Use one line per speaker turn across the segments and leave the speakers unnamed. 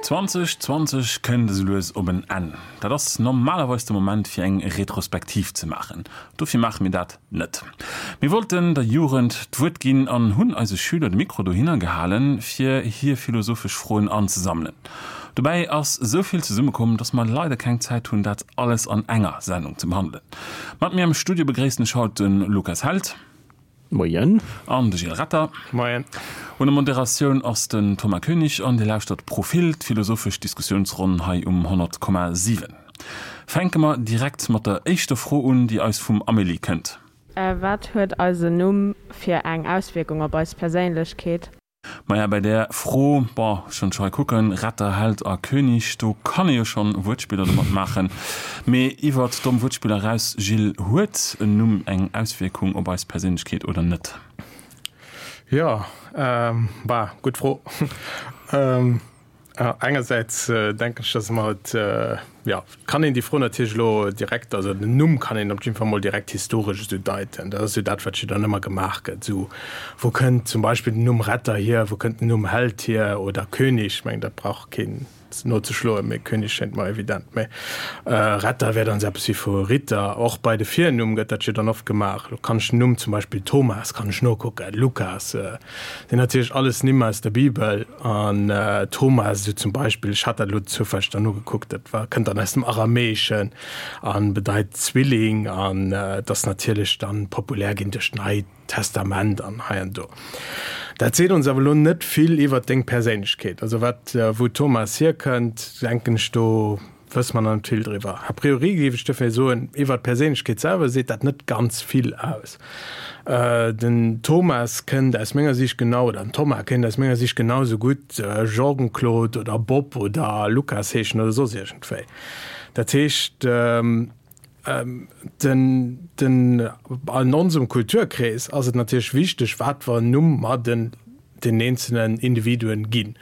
2020 kënnt esou lues op en Enn. Dat ass normalerweis de Moment fir eng Retrospektiv ze maachen. Dofir maache mir dat net. Mir wollten der Jugend d'Wuert ginn an hunn eise Schüler de Mikro dohinner gehalen, fir hir philosophesch Froen anzesammelen. Dobäi ass esou vill zesummekomm, dass mer leider keng Zäit hunn, dat alles an enger Sendung ze behandelen. Mat mir am Studio begréissen ech haut de Lukas Held.
Moien.
An de Gilles Retter.
Moien.
Un der Moderatioun ass den Thomas Koenig an Dir lauschtert Profil, d'philosophesch Diskussiounsronn hei um 100,7. Fänke mer direkt mat der éischter Fro un, déi eis vum Amélie kënnt.
Wat huet eisen Numm fir eng Auswierkung op eis Perséinlechkeet?
Maja, bei där Fro, bon, schonn scho hei kucken, Retter, Held a König, do kann ee jo schonn Wuertspiller domat maachen. Mee iwwert domm Wuertspiller eraus, Gilles, huet en Numm eng Auswierkung op eis Perséinlechkeet oder net?
Jo, bah, gutt Fro. Engersäits denken ech, dass mer et, jo, kann een déi Fro natierlech elo direkt, also den Numm kann een op jidde Fall mol direkt historesch esou deiten. Dat ass jo dat, wat jo dann ëmmer gemaach gëtt, esou, wou kënnt zum Beispill den Numm Retter hier, wou kënnt den Numm Held hier oder König? Ech mengen, dat brauch keen nozeschloen, mee König schéngt mer evident. Mee Retter wär dann esou eppes wéi vu Ritter. Och bei de Virnumm gëtt dat jo dann oft gemaach. Elo kann ech den Numm zum Beispill Thomas kann ech nokucken, Lukas, sinn natierlech alles Nimm aus der Bibel. An Thomas esou zum Beispill, ech hat dat elo zoufälleg dann nogekuckt, dat war, kënnt dann aus dem Aramäeschen a bedeit Zwilling an et ass natierlech dann populär ginn duerch d'Neit Testament an hei an do. Dat seet ons awer elo net vill iwwert deng Perséinlechkeet. Also wat, wou Thomas hierkënnt, denken ech, do wësse mer nach net vill driwwer. A priori géif ech dofir soen, iwwert d'Perséinlechkeet selwer seet dat net ganz vill aus. Den Thomas kënnt aus menger Siicht genau, oder den Thomas kéint aus menger Siicht genau esou gutt Jean-Claude oder Bob oder Lukas heeschen oder soss iergendwéi. Dat heescht, den, den, an onsem Kulturkrees ass et natierlech wichteg, wat fir en Numm mer den, den eenzelnen Individuen ginn.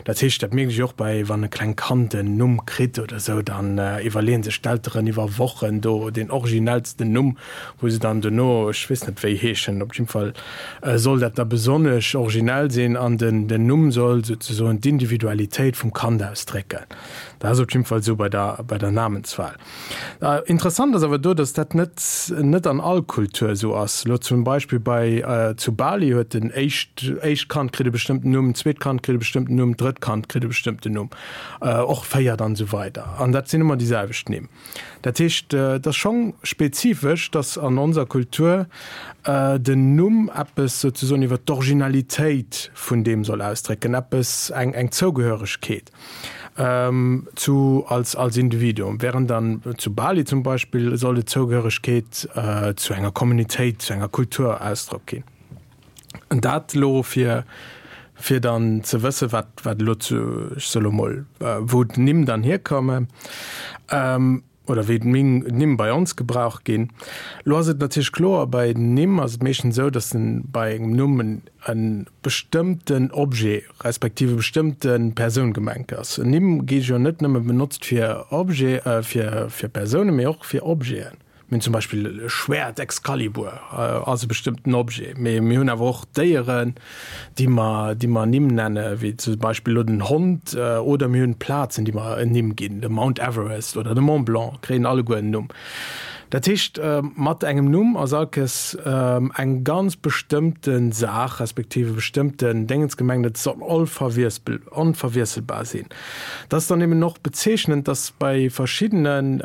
Dat heescht, dat mierkt ech och bei, wann e klengt Kand en Numm kritt oder esou, dann iwwerleeën sech d'Elteren iwwer Wochen do deen originellsten Numm, wou se dann dono, ech weess net wéi heeschen, op jidde Fall soll dat da besonnesch originell sinn an den, den Numm soll souzesoen d'Individualitéit vum Kand ausdrécken. Dat ass op jidde Fall esou bei der, bei der Namenswahl. Interessant ass awer do, datt dat net net an all Kultur esou ass. Elo zum Beispill bei zu Bali huet den éischt éischt Kand kritt e bestëmmten Numm, d'zweet Kand kritt e bestëmmten Numm, d'drëtt Kand kritt e bestëmmten Numm, och véiert an esou weider. An dat sinn ëmmer déi selwecht Nimm. Dat heescht, et ass schonn spezifesch, datt an onser Kultur den Numm eppes souzesoen iwwer d'Originalitéit vun deem soll ausdrécken, eppes eng eng Zougehöregkeet. Zu als als Individuum, während dann zu Bali zum Beispill soll et Zougehöregkeet zu enger Communitéit, zu enger Kultur Ausdrock ginn. An dat elo fir fir dann ze wësse wat wat elo zu, ech soe lo mol, wou d'Nimm dann hierkommen. Oder wéi d'Nimm bei ons gebraucht ginn. Lo ass et natierlech kloer, bei Nimm ass et meeschtens esou, datt bei engem Numm e bestëmmten Objet respektiv e bestëmmte Persoun gemengt ass. Nimm gi jo net nëmme benotzt fir Objet, fir Persounen, mee och fir Objeten. Mir hunn zum Beispill e Schwäert, Excalibur ass e bestëmmten Objet, mee mir hunn awer och Déieren, déi mer, déi mer Nimm nenne wéi zum Beispill elo den Hond, oder mir hunn Plazen, déi mer en Nimm ginn, de Mount Everest oder de Mont Blanc kréien alleguer en Numm. Dat heescht, mat engem Numm ass allkes eng ganz bestëmmte Saach respektiv e bestëmmten Déngens gemengt, et soll onverwiesselbar sinn. Et ass dann eben och bezeechnend, dass bei verschiddenen,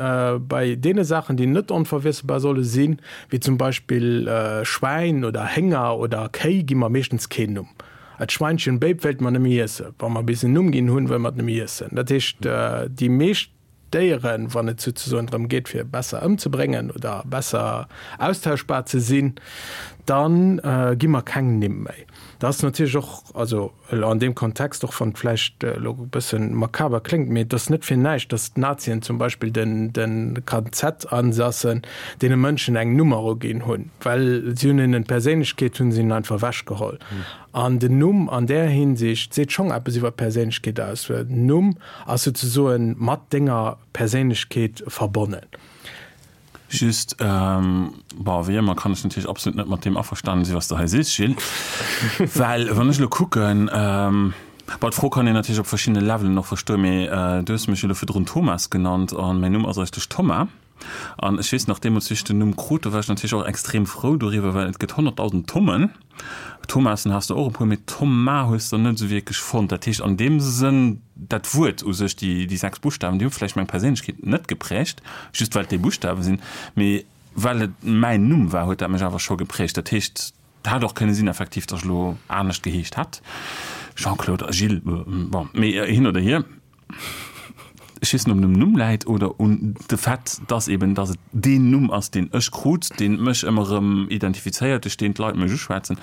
bei deene Saachen, déi net onverwiesselbar solle sinn, wéi zum Beispill Schwäin oder Hénger oder Kéi, gi mer meeschtens keen Numm. Et Schweinchen Béip wéilte mer nëmme iessen. Wa mer bis en Numm ginn hunn, wëlle mer et nëmme iessen. Dat heescht, déi meescht Déieren, wann et souzesoen drëm geet, fir besser ëmzebréngen oder besser austauschbar ze sinn, da gi mer keng Nimm méi. Dat ass natierlech och, also elo an deem Kontext, och wann et vläicht elo e bësse makaber kléngt, mee et ass net fir näischt, datt d'Nazien zum Beispill de KZ-Ansassen deene Mënschen eng Nummer uginn hunn, well si hunn hinnen d'Perséinlechkeet hunn se hinnen einfach ewechgeholl. An den Numm an där Hinsicht seet schonn eppes iwwer d'Perséinlechkeet aus, well den Numm ass souzesoen mat denger Perséinlechkeet verbonnen.
Just, bon, wéi ëmmer kann ech natierlech absolut net mat deem averstanen sinn, wat s de hei sees, Gilles, well wann ech elo kucken. Bon, d'Fro kann een natierlech op verschiddene Levelen och verstoen, mee du hues mech jo elo virdrun Thomas genannt an mäin Numm ass eigentlech Thomas. An ech weess nach, deemools wéi ech den Numm krut, do war ech natierlech och extrem frou doriwwer, well et gëtt 100.000 Thommen. Thomassen has de och e puer, mee Thomas hues de net esou wierklech fonnt. Dat heescht an deem Sënn, dat Wuert u sech, déi, déi 6 Buschtawen, déi hu vläicht meng Perséinlechkeet net geprägt, just well et déi Buschtawe sinn, mee well et mäin Numm war, huet dat mech awer scho geprägt. Dat heescht, et hätt och kënne sinn effektiv, datt ech elo anescht geheescht hätt, Jean-Claude a Gilles, bon, mee hin oder hier. Ech weess net, ob et um Numm läit oder un de Fait, dass eben, dass et deen Numm ass, deen ech krut, deen mech ëmmer erëm identifizéiert, duerch deen d'Leit mech uschwätzen.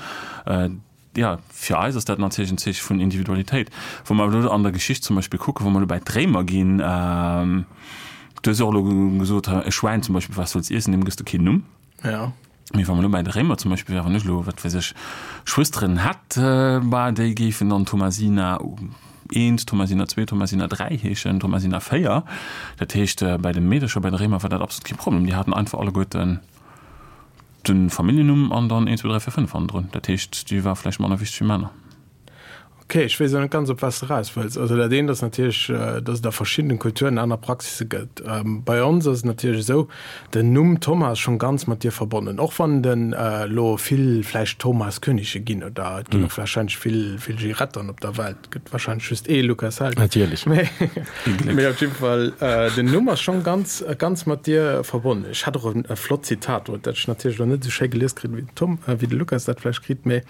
Jo, fir eis ass dat natierlech en Zeeche vun Individualitéit. Wa mer elo an der Geschicht zum Beispill kucken, wa mer elo bäi d'Réimer ginn, du hues och elo gesot, e Schwäin zum Beispill, wat soll's iessen, deem gëss de keen Numm.
Ja.
Mee wa mer elo bäi de Réimer zum Beispill wären, wann ech elo, wat weess ech, Schwësteren hätt, bah, déi géifen dann Thomasina eent, Thomasina zwee, Thomasina dräi heeschen, Thomasina véier. Dat heescht, bäi de Meedercher, bäi de Réimer war dat absolut kee Problem. Déi haten einfach alleguerten de Familljennumm an dann eent, zwou, dräi, véier, fënnef hannendrun. Dat heescht, déi war vläicht manner wichteg wéi Männer.
Ok, ech weess elo net ganz, op wat s de eraus wëlls. Also dat eent ass natierlech, datt et a verschiddenen Kulturen aner Praxisse gëtt. Bei ons ass et natierlech esou, den Numm Thomas ass schonn ganz mat dir verbonnen, och wann den elo vill vläicht Thomas Könige ginn oder et ginn och warscheinlech vill, vill Girettern op der Welt, et gëtt warscheinlech just ee Lukas Held.
Natierlech.
Mee op jidde Fall, den Numm ass schonn ganz, ganz mat dir verbonnen. Ech hat och e flott Zitat, dat ech natierlech elo net esou schéi gelies kritt wéi den Tom, wéi de Lukas dat vläicht kritt, mee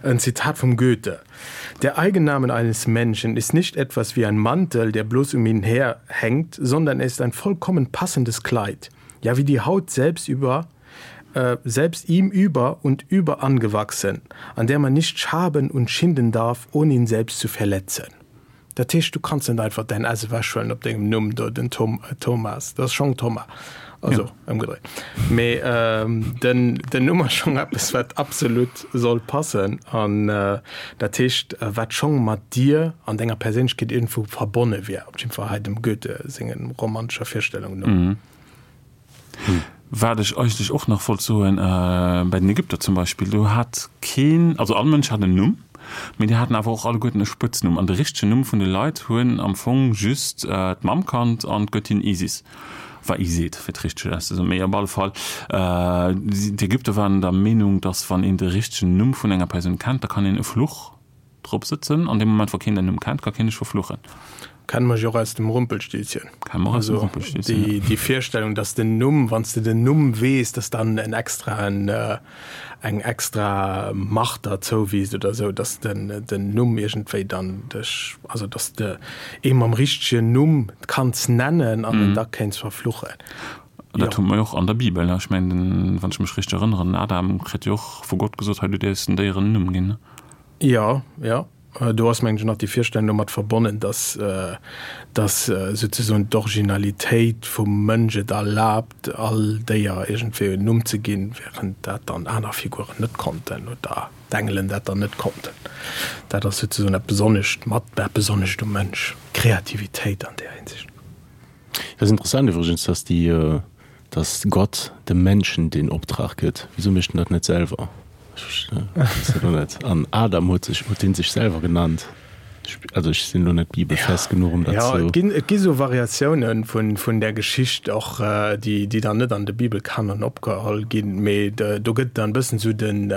Ein Zitat vom Goethe. Der Eigennamen eines Menschen ist nicht etwas wie ein Mantel, der bloß um ihn her hängt, sondern er ist ein vollkommen passendes Kleid, ja wie die Haut selbst über äh, selbst ihm über und über angewachsen, an der man nicht schaben und schinden darf, ohne ihn selbst zu verletzen. Dat heescht, du kanns net einfach däin S ewechhuelen op dengem Numm do, den Tom, Thomas, dat ass schonn Thomas, also ëmgedréit. Mee den, den Numm ass schonn eppes, wat absolut soll passen an dat heescht, wat schonn mat dir an denger Perséinlechkeet iergendwou verbonne wier, op jiddwer Fall hei dem Goethe sengen romantescher Virstellung no.
Wat ech eigentlech och nach wollt soen, bei den Ägypter zum Beispill, do hat keen, also all Mënsch hat en Numm, mee déi haten awer och alleguerten e Spëtznumm. An de richtegen Numm vun de Leit hunn am Fong just d'Mamm kannt an d'Göttin Isis, war Iset, fir et richteg auszesoen. Mee op alle Fall, d'Ägypter waren der Meenung, datt wann een de richtegen Numm vun enger Persoun kennt, da kann een e Fluch Drop sëtzen. An deem Moment, wou keen däin Numm kennt, ka keen dech verfluchen.
Kenne mer jo och aus dem Rumpelstilzchen.
Kenne mer och aus dem Rumpelstilzchen,
ja. Déi Virstellung, dass den Numm, wann s de den Numm weess, dass dann en extraen, eng extra Macht der zouwiisst oder esou, dass den den Numm iergendwéi dann dech, also dass de ee mam richtegen Numm kanns nennen an en da kéints verfluchen.
Dat hu mer jo och an der Bibel. Ech mengen, wann ech mech richteg erënneren, den Adam kritt jo och vu Gott gesot, hei du däerfs den Déieren en Numm ginn.
Jo, jo. Do ass, mengen ech, nach déi Virstellung domat verbonnen, dass, dass souzesoen d'Originalitéit vum Mënsch et erlaabt, all Déier iergendwéi en Numm ze ginn, während dat dann aner Figuren net konnten oder d'Engelen dat dann net konnten. Dat ass souzesoen dat Besonnescht mat, dat Besonnescht um Mënsch, d'Kreativitéit an där Hinsicht.
Dat ass interessant iwwregens, dass déi, dass Gott dem Menschen den Optrag gëtt. Wieso mécht en dat net selwer? Ech weess dat elo net. An Adam huet sech, huet dee sech selwer genannt? Ech, also ech sinn elo net bibelfest genuch, um dat
Ja,
ze.
et ginn, et gi sou Variatiounen vun, vun där Geschicht och, déi, déi dann net an de Bibelkanon opgeholl ginn, mee do gëtt dann e bëssen sou den,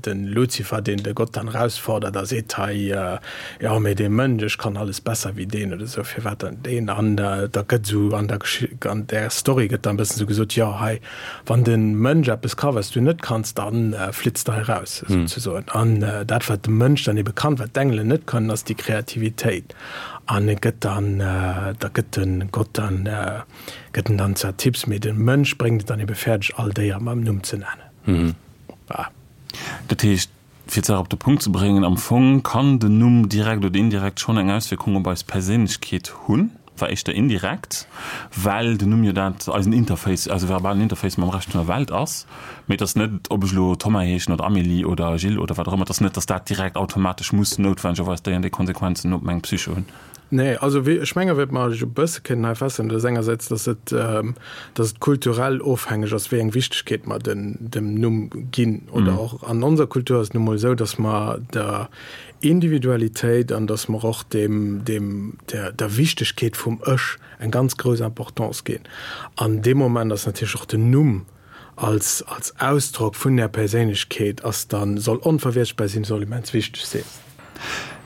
den Luzifer, deen de Gott dann erausfordert a seet, hei, Jo, mee dee Mënsch, ech kann alles besser wéi deen oder esou, firwat dann deen? An da gëtt esou an der Gesch-, an där Story gëtt dann e bëssen esou gesot, jo hei, wann de Mënsch eppes ka wat s du net kanns, da flitz de hei raus, souzesoen. An dat wat de Mënsch dann ebe kann, wat d'Engelen net kënnen, ass déi Kreativitéit. An e gëtt dann, da gëtt de Gott dann, gëtt en dann zwar Tipps, mee de Mënsch bréngt et dann ebe fäerdeg all Déier mam Numm ze nennen.
Ah. Dat heescht, Fir d'Saach op de Punkt ze bréngen, am Fong kann den Numm direkt oder indirekt schonn eng Auswierkung op eis Perséinlechkeet hunn, war éischter indirekt, well den Numm jo dat eisen Interface, eise verbalen Interface mam Rescht vun der Welt ass. Mee et ass net, ob ech elo Thomas heeschen oder Amélie oder Gilles oder wat och ëmmer, et ass net, datt dat direkt automatesch muss noutwendegerweis déi an déi Konsequenzen op meng Psyche hunn.
Nee, also wéi, ech menge wat mer e bësse kënnen hei feststellen, dat ass engersäits, datt et, datt et kulturell ofhängeg ass, wéi eng Wichtegkeet mer den, dem Numm ginn. Oder och an onser Kultur ass et nu mol esou, datt mer der Individualitéit an datt mer och dem, dem, der, der Wichtegkeet vum Ech eng ganz grouss Importance ginn. An dee Moment ass natierlech och den Numm als, als Ausdrock vun där Perséinlechkeet ass dann, soll onverwieschtbar sinn, soll immens wichteg sinn.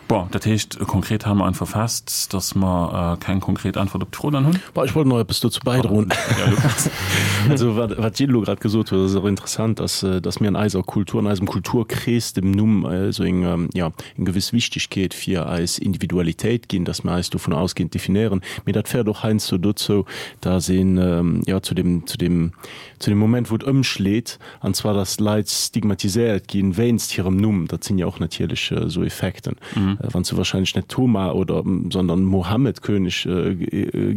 Bon, dat heescht, konkret hale mer einfach fest, dass mer keng konkret Äntwert op d'Fro dann hunn.
Bon, ech wollt nach eppes dozou bäidroen. Also, wat, wat d'Jill elo grad gesot huet, ass och interessant, dass, dass mir an eiser Kultur, an eisem Kulturkrees dem Numm esou eng, jo, eng gewëss Wichtigkeet fir eis Individualitéit ginn, dass mir eis dovun ausgehend definéieren. Mee dat féiert och heiansdo dozou, dass een, jo, zu dem, zu dem, zu dem Moment, wou et ëmschleet, An zwar, dass Leit stigmatiséiert ginn wéinst hirem Numm. Dat sinn jo och natierlech esou Effekten. Wann s du wahrscheinlech net Thomas oder, sondern Mohammed König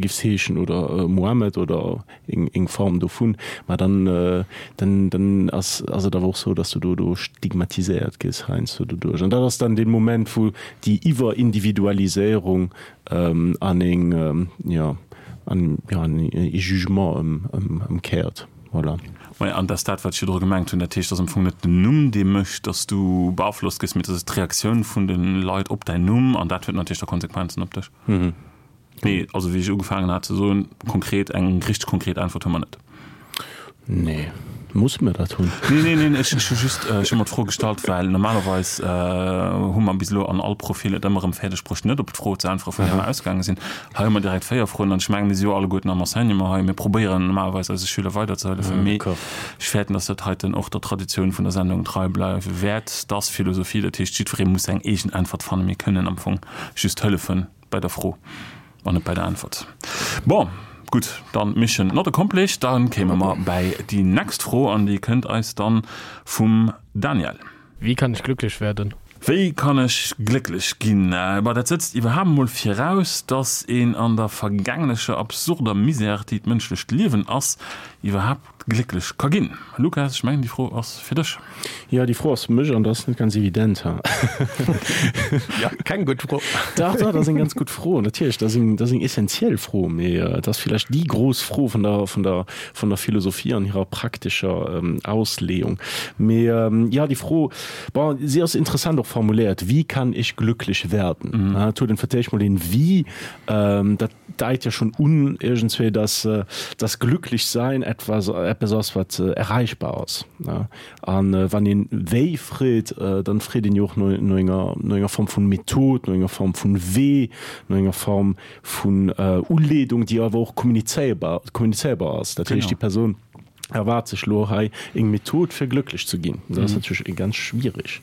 giffs heeschen oder Mohammed oder eng Form dovun, ma dann, dann, dann ass, ass et awer och sou, dass du do, do stigmatiséiert gëss heiansdo doduerch. An dat ass dann dee Moment, wou déi Iwwerindividualiséierung an eng, jo, an, jo, an ee Jugement ëm, ëmkéiert. Voilà.
Maja, an dat ass dat, wat ech virdru gemengt hunn. Dat heescht, et ass am Fong net den Numm, dee mécht, datt s du beaflosst gëss, mee et ass d'Reaktioun vun de Leit op däin Numm an dat huet natierlech da Konsequenzen op dech. Mee also, wéi ech ugefaangen hat ze soen, konkret, eng richteg konkret Äntwert hu mer net.
Nee. Musse mir dat hunn?
Nee, nee, nee, ech hu just, ech hu mer d'Fro gestallt, well normalerweis hu mer bis elo an all Profil et ëmmer erëm fäerdeg bruecht, net op d'Fro ze äntweren, vun där mer ausgaange sinn. Hei hu mer direkt 4 Froen an ech mengen, mir si jo alleguerten am Enseignement hei, mir probéieren normalerweis eise Schüler weiderzehëllefen, mee ech fäerten, dass dat heiten och der Traditioun vun der Sendung trei bleiwe wäert. Dat ass Philosophie, dat heescht, jiddweree muss seng eegen Äntwert fannen. Mir kënnen am Fong just hëllefe bei der Fro an net bei der Äntwert. Bon, gutt, dann Mission not accomplished. Da kéime mer bäi déi next Fro an déi kënnt eis dann vum Daniel.
Wie kann ich glücklich werden?
Wéi kann ech glécklech ginn? Bah, dat sëtzt iwwerhaapt emol viraus, dass een an der vergänglecher, absurder Misère, déi d'mënschlecht Liewen ass, iwwerhaapt glécklech ka ginn. Lukas, ech mengen, déi Fro ass fir dech.
Jo, déi Fro ass fir mech an dat ass net ganz evident, ha.
Jo, keng gutt Fro.
Dach, dach, dat ass eng ganz gutt Fro, natierlech. Dat ass eng, dat ass eng essentiell Fro, mee et ass villäicht déi grouss Fro vun der, vun der, vun der Philosophie an hirer praktescher Ausleeung. Mee jo, déi Fro, bon, si ass interessant och formuléiert, Wie kann ich glücklich werden? Et huet en fir d'éischt mol een Wie, dat deit jo schonn un iergendswéi, dass das Glücklichsein etwas, eppes ass, wat erreichbar ass. A wann een wéi freet, dann freet een jo och no enger, no enger Form vun Method, no enger Form vun Wee, no enger Form vun Uleedung, déi awer och kommunizéierbar, kommunizéierbar ass. Dat heescht, déi Persoun erwaart sech elo hei eng Method, fir glëcklech ze ginn. Dat ass natierlech ganz schwierig.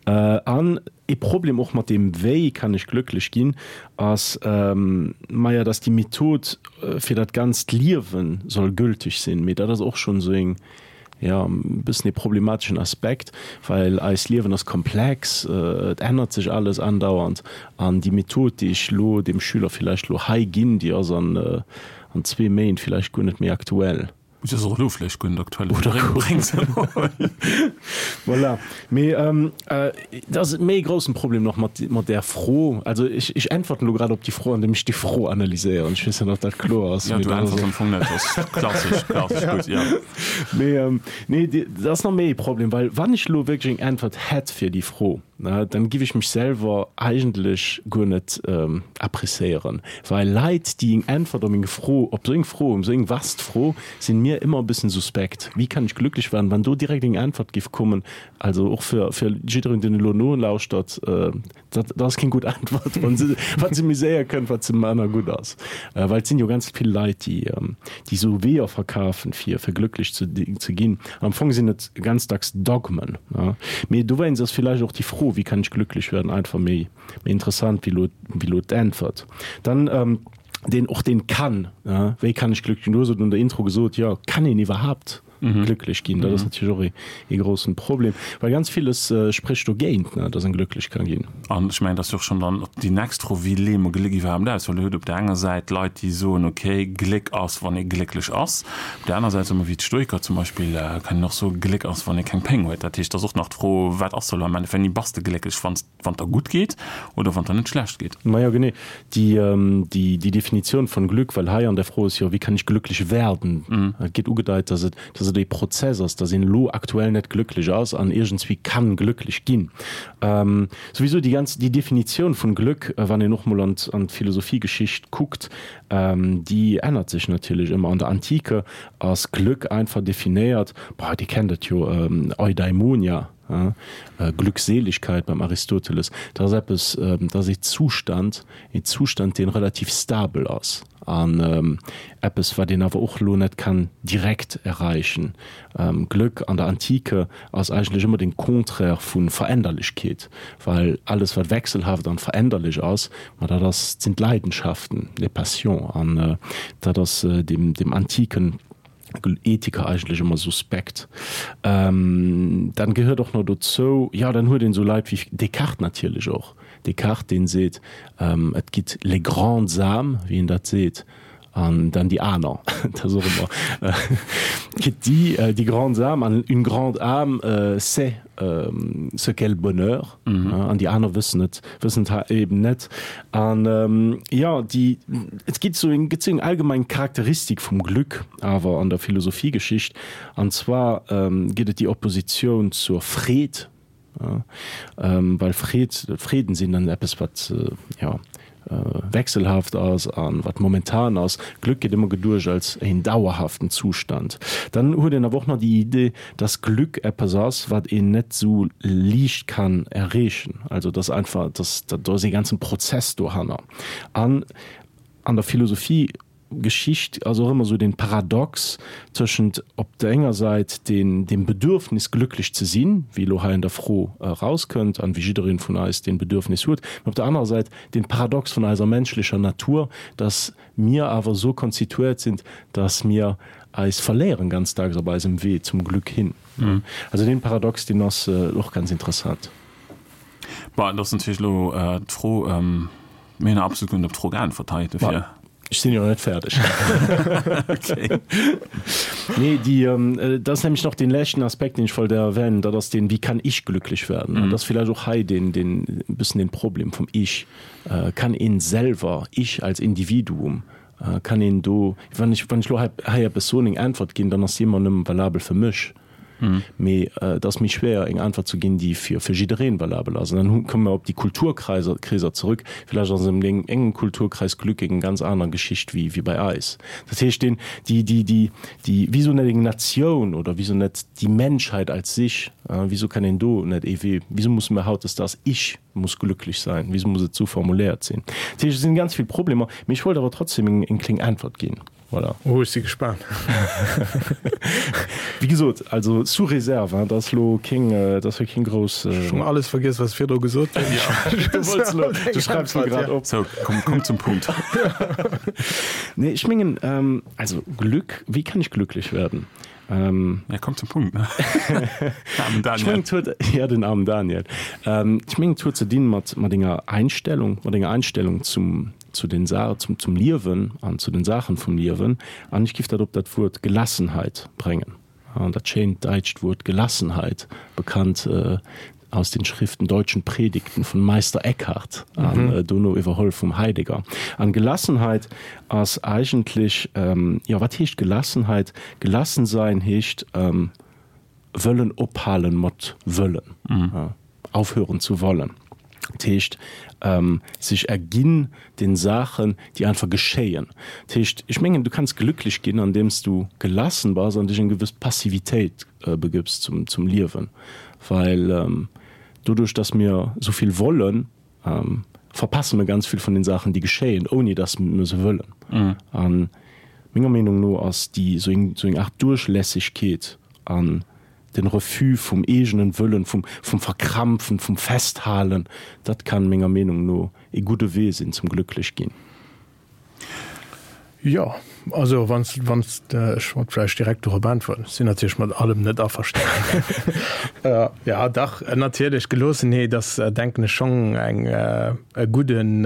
An ee Problem och mat deem Wéi kann ech glëcklech ginn ass, maja, dass déi Method fir dat ganzt Liewe soll gültig sinn. Mee dat ass och schonn esou eng, jo, e bëssen ee problemateschen Aspekt, well eist Liewen ass komplex, et ännert sech alles andauernd an déi Method, déi ech elo deem Schüler villäicht elo hei ginn, déi ass an an zwee Méint villäicht guer net méi aktuell.
Si ass och elo vläicht guer net aktuell. Oder bréng se emol.
Voilà. Mee et ass méi e groussen Problem nach mat mat där Fro. Also ech ech äntwerten elo grad op déi Fro, andeem ech déi Fro analyséieren. Ech weess net, ob dat kloer ass.
Jo, du äntwers am Fong net. Dat ass klassesch, klassesch gutt, jo.
Mee nee, dat ass nach méi e Problem, well wann ech elo wierklech eng Äntwert hätt fir déi Fro, dann giff ech mech selwer eigentlech guer net appréciéieren, well Leit, déi eng Äntwert op eng Fro, op esou eng Fro, esou eng vast Fro, sinn mir ëmmer e bëssen suspekt. Wie kann ich glücklich werden? Wann do direkt eng Äntwert giff kommen, also och fir fir jiddereen, deen elo nolauschtert, Dat dat ass keng gutt Äntwert, wann se wat se méi séier kënnt, wat se manner gutt ass. Well et sinn jo ganz vill Leit, déi déi esou Weeër verkafen, fir fir glëcklech ze ze ginn. Am Fong sinn et ganz dacks Dogmen. Mee dowéinst ass villäicht och déi Fro, Wie kann ich glücklich werden? einfach méi méi interessant wéi elo wéi elo d'Äntwert. Dann deen och deen kann, wéi kann ich glücklich ginn? Du hues et an der Intro gesot, jo, kann een iwwerhaapt? glücklech ginn. Dat ass natierlech och ee grossen Problem, well ganz villes sprécht dogéint, ne, dass en glücklech ka ginn.
An ech mengen, dat ass jo och schonn dann déi nächst Fro, Wéi leeë mer Gléck iwwerhaapt aus? Well Dir hutt op där enger Säit Leit, déi soen, okay, Gléck ass, wann ee glécklech ass. Op där aner Säit soe mer, wéi d'Stoiker zum Beispill, kann een och soen, Gléck ass, wann ee keng Péng huet. Dat heescht, et ass och nach d'Fro, Wat ass elo am Endeffekt, wéini bass de glécklech? Wann s Wann der gutt geet oder wann der net schlecht geet?
Majo genee, déi déi Definitioun von Glück, well hei an der Fro ass jo, wie kann ich glücklich werden? Et gétt ugedeit, dass et dass et ee Prozess ass, dass een elo aktuell net glücklich ass an iergendswéi kann glücklich ginn. Souwisou déi ganz déi Definitioun vun Glück, wann een och mol an an d'Philosophiegeschicht kuckt, déi ännert sech natierlech ëmmer. An der Antike ass Glück einfach definéiert, boah, Dir kennt et jo, Eudaimonia, Glückseligkeit beim Aristoteles, dat ass eppes, dat ass ee Zustand, ee Zustand, dee relativ stabel ass an eppes, wat een awer och elo net kann direkt erreichen. Glück an der Antike ass eigentlech ëmmer den Contraire vu Veränderlechkeet, well alles, wat wechselhaft an veränderlech ass, ma dat ass, sinn d'Leidenschaften, les passions, an dat ass dem, dem antiken Ethiker eigentlech ëmmer suspekt. Dann gehéiert och nach dozou, jo, dann huet een esou Leit wéi Descartes natierlech och. Descartes, deen seet, et gitt les grandes âmes, wéi en dat seet, an dann déi aner. Dat ass och ëmmer, et gitt déi, déi grandes âmes, an une grande âme sait ce qu'est le bonheur, an déi aner wëssen et, wëssen et eben net. An jo, déi, et gitt esou eng, gëtt esou eng allgemeng Charakteristik vum Glück awer an der Philosophiegeschicht, an zwar gëtt et déi Oppositioun zur Freed, well Freed, Freeden sinn dann eppes wat, jo, wechselhaft ass an wat momentan ass. Glück gëtt ëmmer geduecht als een dauerhaften Zustand. Dann huet een awer och nach déi Idee, dass Glück eppes ass, wat een net sou liicht kann erreechen. Also dass einfach, dass do ass ee ganzen Prozess dohanner. An an der Philosophie Geschicht ass och ëmmer esou den Paradox tëschent op der enger Säit den dem Bedürfnis glücklech ze sinn, wéi elo hei an der Fro erauskënnt an wéi jiddereen vun eis deen Bedürfnis huet, mä op der anerer Säit den Paradox vun eiser menschlecher Natur, dass mir awer esou konstituiert sinn, dass mir eis verléieren ganz dacks op eisem Wee zum Glück hin. Also deen Paradox, deen ass och ganz interessant.
Bon, et ass natierlech elo d'Fro, Mir hunn absolut guer net op d'Fro geäntwert hei, dofir.
Ech sinn jo nach net fäerdeg.
Okay.
Nee, déi, dat ass nämlech nach dee leschten Aspekt, deen ech wollt erwänen, dat ass deen, Wie kann ich glücklich werden? An dat ass villäicht och hei deen, deen, e bëssen den Problem vum Ich. Kann een selwer, ich als Individuum, kann een do, wann ech, wann ech elo hei, hei eppes soen, eng Äntwert ginn, dann ass déi ëmmer nëmme valabel fir mech. Mee et ass méi schwéier, eng Äntwert ze ginn, déi fir jiddereen valabel ass. An dann komme mer op déi Kulturkreiser Kreeser zerëck. Villäicht ass an engem Kulturkreis Glück eng ganz aner Geschicht wéi bei eis. Dat heescht, deen, déi, déi, déi, déi, wieso net eng Natioun oder wieso net déi Menschheit als sich? Wieso kann een do net ee Wee, wieso musse mer hautdesdaags ich muss glücklich sein, wieso muss et esou formuléiert sinn? Dat heescht, et sinn ganz vill Problemer, mee ech wollt awer trotzdem eng kléng Äntwert ginn. Voilà.
Oh, ech si gespaant.
Wéi gesot, also sous réserve, hein, dat ass elo keng, dat ass jo keng grouss.
Ech hunn alles vergiess, wat ech virdru gesot hunn.
Du wollts elo, du schreifs elo grad op.
Sou, komm, komm zum Punkt.
Nee, ech mengen, also Glück, wie kann ich glücklich werden?
Ja, komm zum Punkt, ne? Armen Daniel.
Ech mengen, et huet, ja, den armen Daniel. Ech mengen, et huet ze dinn mat, mat enger Einstellung, mat enger Einstellung zum, zu den Sa zum, zum Liewen an zu den Saachen vum Liewen. An ech giff dat op dat Wuert Gelassenheit bréngen. An dat schéint däitscht Wuert Gelassenheit, bekannt aus den Schriften Deutschen Predigten von Meister Eckhart an dono iwwerholl vum Heidegger. An Gelassenheit ass eigentlech, jo, wat heescht Gelassenheit? Gelassen sein heescht wëllen ophalen mat wëllen, aufhören zu wollen. Dat heescht, sech erginn den Saachen, déi einfach geschéien. Dat heescht, ech mengen, du kanns glücklech ginn, andeems du gelassen bass an dech eng gewëss Passivitéit begëbs zum, zum Liewen. Well doduerch, dass mir esou vill wollen, verpasse mir ganz vill vun den Saachen, déi geschéien, ouni dass mir se wëllen. A menger Meenung no ass déi esou eng, esou eng Aart Duerchlässegkeet an Den Refus vum eegenen Wëllen, vum vum Verkrampfen, vum Festhalen, dat kann menger Meenung no ee gudde Wee sinn zum glücklech ginn.
Jo, also wann s, wann s de, ech wollt vläicht direkt dorop äntweren, ech sinn natierlech mat allem net averstanen. Jo, dach, natierlech, Geloossenheet ass, denken ech, schonn eng, e gudden,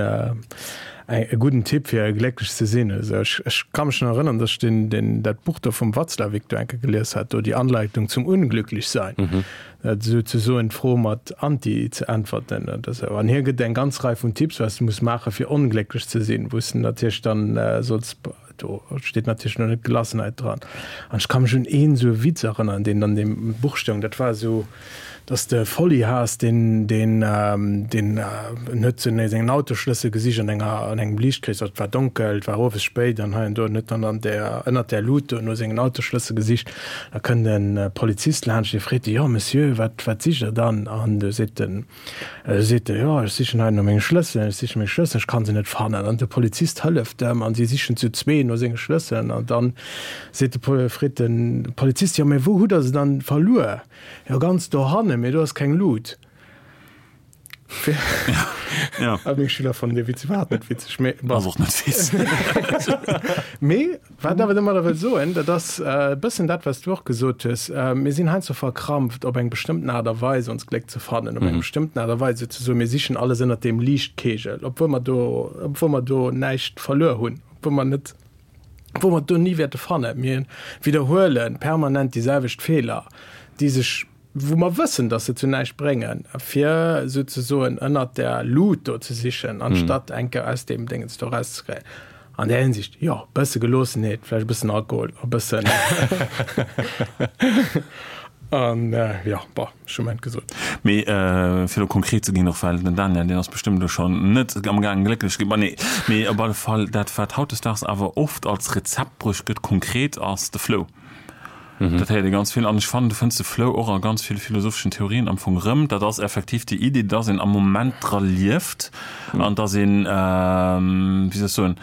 e gudden Tipp fir glécklech ze sinn. Also ech, ech ka mech nach erënnern, datt ech deen, deen, dat Buch do vum Watzlawick do eng Kéier gelies hat, do Die Anleitung zum Unglücklichsein. Souzesoen d'Fro mat Anti ze äntwerten oder sou. An hie gëtt eng ganz Rei vun Tipps, wat s de muss maachen, fir onglécklech ze sinn, wou s de natierlech dann solls, do steet natierlech elo net Gelassenheit dran. An ech ka mech un een esou e Witz erënneren, deen an deem Buch stoung, dat war esou, dass de Folli has, deen, deen, deen en huet sou sengen Autoschlëssel gesicht an enger, an engem Liichtkrees, et war donkel, et war owes spéit an hei an do, en huet dann an där, ënnert där Lut do no sengen Autoschlëssel gesicht. Da kënnt e Polizist laanscht, dee freet e, Jo, Monsieur, wat, wat sicht Der dann? An du seet den, seet e, Jo, ech sichen hei no menge Schlësselen, ech siche meng Schlësselen, ech kann se net fannen. An de Polizist hëlleft em an si sichen zu zwee no senge Schlësselen. An dann seet de Pol, freet de Polizist, Jo, mä wou hutt Der se dann verluer? Jo, ganz dohannen, mä do ass keng Lut.
Ja.
Ah, meng Schüler fannen dee Witz iwwerhaapt net witzeg, mee bon.
Ass och net witzeg.
Mee wat awer domadder wëll soen, dat ass e bëssen dat, wat s du och gesot hues, Mir sinn heiansdo verkrampft, op eng bestëmmten Aart a Weis ons Gléck ze fannen, op eng bestëmmten Aart a Weis souzesoen, mir sichen alles ënnert deem Liichtkegel, obwuel mer do, obwuel mer do näischt verluer hunn, obwuel mer net, obwuel mer et do ni wäerte fannen. Mir widderhuele permanent déi selwecht Feeler, déi sech wou mer wëssen, dass se zu näischt bréngen, fir souzesoen ënnert der Lut do ze sichen, anstatt eng Kéier aus deem Déngens do erauszekréien. An där Hinsicht, jo, e bësse Geloossenheet, vläicht e bëssen Alkohol, e bëssen an, jo, bon, ech hu mäint gesot.
Mee fir elo konkret ze ginn, och well den Daniel, deen ass bestëmmt elo schonn net amgaangen glécklech ze ginn, ma nee, mee op alle Fall dat, wat hautdesdaags awer oft als Rezept bruecht gëtt, konkret, ass de Flow. Dat héiert ee ganz vill. An ech fannen, du fënns de Flow och a ganz ville philosopheschen Theorien am Fong erëm. Dat ass effektiv déi Iddi, dass een am Moment dra lieft an dass een, wéi soll ech soen,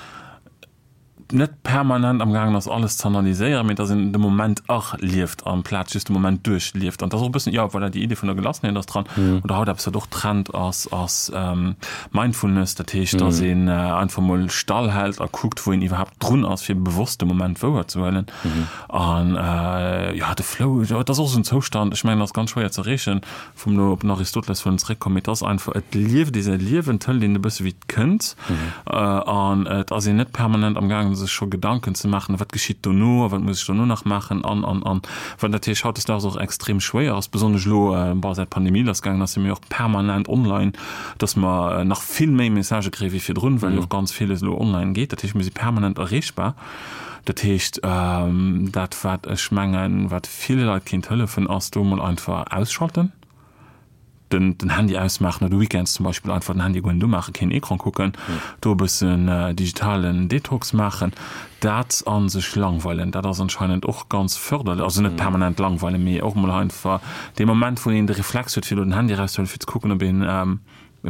net permanent am gaangen ass, alles ze analyséieren, mee dass een de Moment erlieft amplaz just de Moment duerchlieft. An dat ass och e bëssen, jo, voilà, déi Iddi vun der Gelassenheet ass dran. Oder haut eppes, wat och Trend ass, ass Mindfulness, dat heescht, dass een einfach mol stall hält a kuckt, wou een iwwerhaapt drun ass, fir bewosst de Moment wouerzehuelen. An jo, de Flow, jo, et ass och esou en Zoustand, ech mengen, ass ganz schwéier ze erreechen, vum elo op den Aristoteles wëllen zeréckkommen, mee et ass einfach, et lieft ee säi Liewen, et hëlt een e bësse wéi et kënnt an et ass een net permanent am gaangen, sech scho Gedanken ze maachen, a wat geschitt dono a wat muss ech dono nach maachen an, an, an. Wat natierlech hautdesdaags och extrem schwéier ass, besonnesch elo, bon, säit d'Pandemie lassgaangen ass, si mir och permanent online, dass mer nach vill méi Messagë kréie wéi virdrun, well jo och ganz villes elo online geet. Dat heescht, mir si permanent erreechbar. Dat heescht, dat wat ech mengen, wat ville Leit kéint hëllefen, ass do emol einfach ausschalten, den den Handy ausmaachen oder weekends zum Beispill einfach den Handy guer net umaachen, keen Ecran kucken, do e bëssen digitalen Detox maachen. Dat a sech langweilen, dat ass anscheinend och ganz förderlech, also net permanent langweilen, mee och emol einfach dee Moment, wou een de Reflex huet, fir elo den Handy erauszehuelen, fir ze kucken, ob een e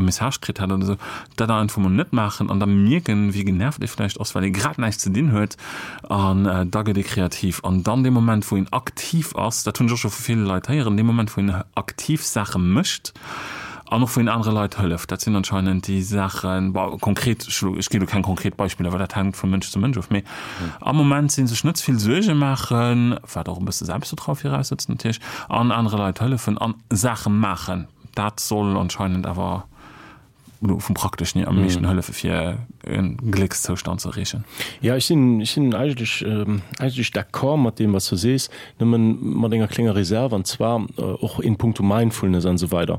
Message kritt hat oder esou, dat dann einfach mol net maachen an da mierken, wéi genervt ee vläicht ass, well ee grad näischt ze dinn huet an da gëtt ee kreativ. An dann dee Moment, wou een aktiv ass, dat hunn ech och scho vu ville Leit héieren, dee Moment, wou een aktiv Saache mécht an och wou een anere Leit hëlleft, dat sinn anscheinend déi Saachen, bon, konkret, ech ginn elo keng konkret Beispiller, well dat hänkt vu Mënsch zu Mënsch of, mee am Moment sinn, sech net ze vill Suerge maachen, wat och e bësse Selbstvertraue viraussetzt natierlech, an anere Leit hëllefen an Saache maachen. Dat soll anscheinend awer elo vum Prakteschen hier am meeschten hëllefe fir e Gléckszoustand ze erreechen.
Jo, ech sinn, ech sinn eigentlech, eigentlech d'accord mat deem, wat s du sees, nëmmen mat enger klénger Reserve, an zwar och in puncto Mindfulness an esou weider.